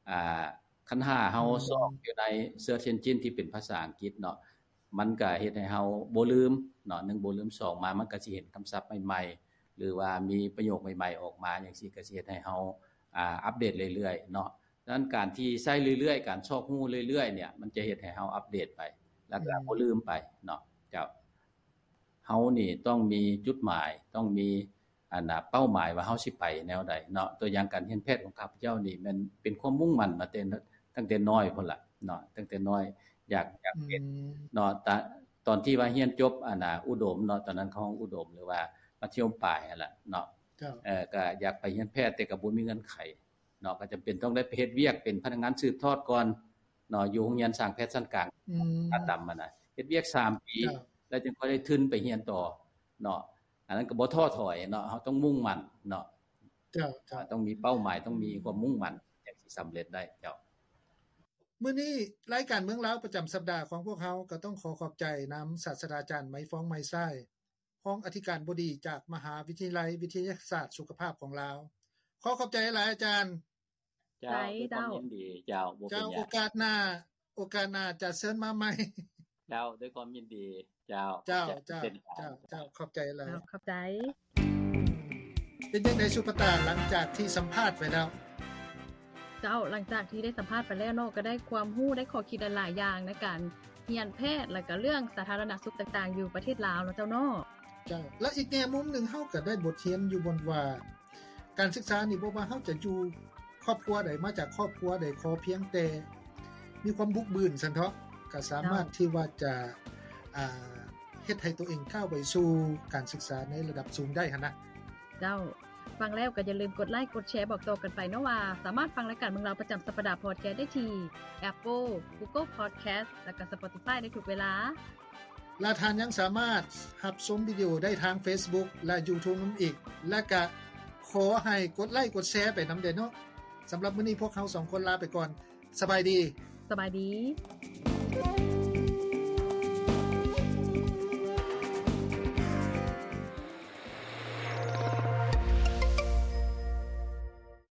ອ່າ ຄັນຖ້າເຮົາ ອືມ ຊອກຢູ່ໃນ Search Engine ທີ່ເປັນພາສາອັງກິດເນາະ ມັນກໍເຮັດໃຫ້ເຮົາບໍ່ລືມເນາະ ໜຶ່ງ ບໍ່ລືມ ສອງ ມາມັນກໍຊິເຫັນຄຳສັບໃໝ່ໆ ຫຼືວ່າມີປະໂຫຍກໃໝ່ໆອອກມາ ຈັ່ງຊີ້ ກໍຊິເຮັດໃຫ້ເຮົາ ອ່າ ອັບເດດເລື້ອຍໆເນາະ. ສະນັ້ນການທີ່ໃຊ້ເລື້ອຍໆ ການຊອກຮູ້ເລື້ອຍໆເນ່ຍ ມັນຈະເຮັດໃຫ້ເຮົາອັບເດດໄປ ແລ້ວກໍ ອືມ ບໍ່ລືມໄປເນາະ. ເຈົ້າ ເຮົານີ້ຕ້ອງມີຈຸດໝາຍ ຕ້ອງມີ ອັນນະ ເປົ້າໝາຍວ່າເຮົາຊິໄປແນວໃດເນາະ. ຕົວຢ່າງການຮຽນແພດຂອງຂ້າພະເຈົ້ານີ້ ແມ່ນເປັນຄວາມມຸ່ງໝັ້ນມາແຕ່ ຕັ້ງແຕ່ນ້ອຍພຸ້ນລະເນາະ ຕັ້ງແຕ່ນ້ອຍ ຢາກ ຢາກເປັນ ອືມ ເນາະ. ຕະ ຕອນທີ່ວ່າຮຽນຈົບ ອັນນະ ອຸດົມເນາະ ຕອນນັ້ນເຂົາຮ້ອງອຸດົມ ຫຼືວ່າມັດທະຍົມປາຍຫັ້ນລະເນາະ ເຈົ້າ ເອີ ກໍຢາກໄປຮຽນແພດ ແຕ່ກໍບໍ່ມີເງື່ອນໄຂ ເນາະ ກໍຈຳເປັນຕ້ອງໄດ້ໄປເຮັດວຽກເປັນພະນັກງານສືບທອດກ່ອນເນາະ ຢູ່ໂຮງຮຽນຊ່າງແພດຊັ້ນກາງ ອືມ ອາດຳຫັ້ນນະ ເຮັດວຽກສາມປີ ເຈົ້າ ແລ້ວຈຶ່ງຄ່ອຍໄດ້ທຶນໄປຮຽນຕໍ່ເນາະ. ອັນນັ້ນກໍບໍ່ທໍ້ຖອຍເນາະ ເຮົາຕ້ອງມຸ່ງໝັ້ນເນາະ ເຈົ້າ ເຈົ້າ ຕ້ອງມີເປົ້າໝາຍ ຕ້ອງມີຄວາມມຸ່ງໝັ້ນ ຈັ່ງຊິສຳເລັດໄດ້. ເຈົ້າ ມື້ນີ້ລາຍການເມືອງລາວປະຈຳສັບດາຂອງພວກເຮົາ ກໍຕ້ອງຂໍຂອບໃຈນຳສາດສະດາຈານ ໄມຟອງ ໄມຊາຍ ຮອງອະທິການບໍດີຈາກມະຫາວິທະຍາໄລວິທະຍາສາດສຸຂະພາບຂອງລາວ. ຂໍຂອບໃຈຫຼາຍອາຈານ. ເຈົ້າ ດ້ວຍຄວາມຍິນດີ. ເຈົ້າ ບໍ່ເປັນຫຍັງ. ເຈົ້າ ໂອກາດໜ້າ ໂອກາດໜ້າຈະເຊີນມາໃໝ່. ເຈົ້າ ດ້ວຍຄວາມຍິນດີ. ເຈົ້າ ເຈົ້າ ເຈົ້າ ເປັນການ. ເຈົ້າ ເຈົ້າ ຂອບໃຈຫຼາຍ. ເຈົ້າ ຂອບໃຈ. ເປັນຈັ່ງໃດສຸປະຕາ ຫຼັງຈາກທີ່ສຳພາດໄປແລ້ວ? ເຈົ້າ ຫຼັງຈາກທີ່ໄດ້ສຳພາດໄປແລ້ວເນາະ ກໍໄດ້ຄວາມຮູ້ ໄດ້ຂໍ້ຄິດຫຼາຍໆຢ່າງໃນການຮຽນແພດ ແລ້ວກໍເລື່ອງສາທາລະນະສຸກຕ່າງໆຢູ່ປະເທດລາວເນາະເຈົ້າເນາະ. ເຈົ້າ ແລະ ອີກແງ່ມຸມໜຶ່ງ ເຮົາກໍໄດ້ບົດຮຽນຢູ່ບ່ອນວ່າ ການສຶກສານີ້ ບໍ່ວ່າເຮົາຈະຢູ່ຄອບຄົວໃດ ມາຈາກຄອບຄົວໃດ ຂໍພຽງແຕ່ມີຄວາມບຸກບືນຊັ້ນເຖາະ ກໍສາມາດ ເຈົ້າ ທີ່ວ່າຈະ ອ່າ ເຮັດໃຫ້ຕົວເອງກ້າວໄປສູ່ການສຶກສາໃນລະດັບສູງໄດ້ຫັ້ນນະ. ເຈົ້າ, ຟັງແລ້ວກໍຢ່າລືມກົດໄລກົດແຊບອກຕໍ່ກັນໄປເນາະວ່າ ສາມາດຟັງລາຍການເມືອງລາວປະຈຳສັບປະດາພອດແຄສໄດ້ທີ່ Apple, Google Podcast ແລະກໍ Spotify ໄດ້ທຸກເວລາ. ແລະທ່ານຍັງສາມາດຮັບຊົມວິດີໂອໄດ້ທາງ Facebook ແລະ YouTube ນຳອີກ. ແລະກະຂໍໃຫ້ກົດໄລກົດແຊໄປນຳແດ່ເນາະ. ສຳລັບມື້ນີ້ພວກເຮົາສອງຄົນລາໄປກ່ອນ. ສະບາຍດີ. ສະບາຍດີ.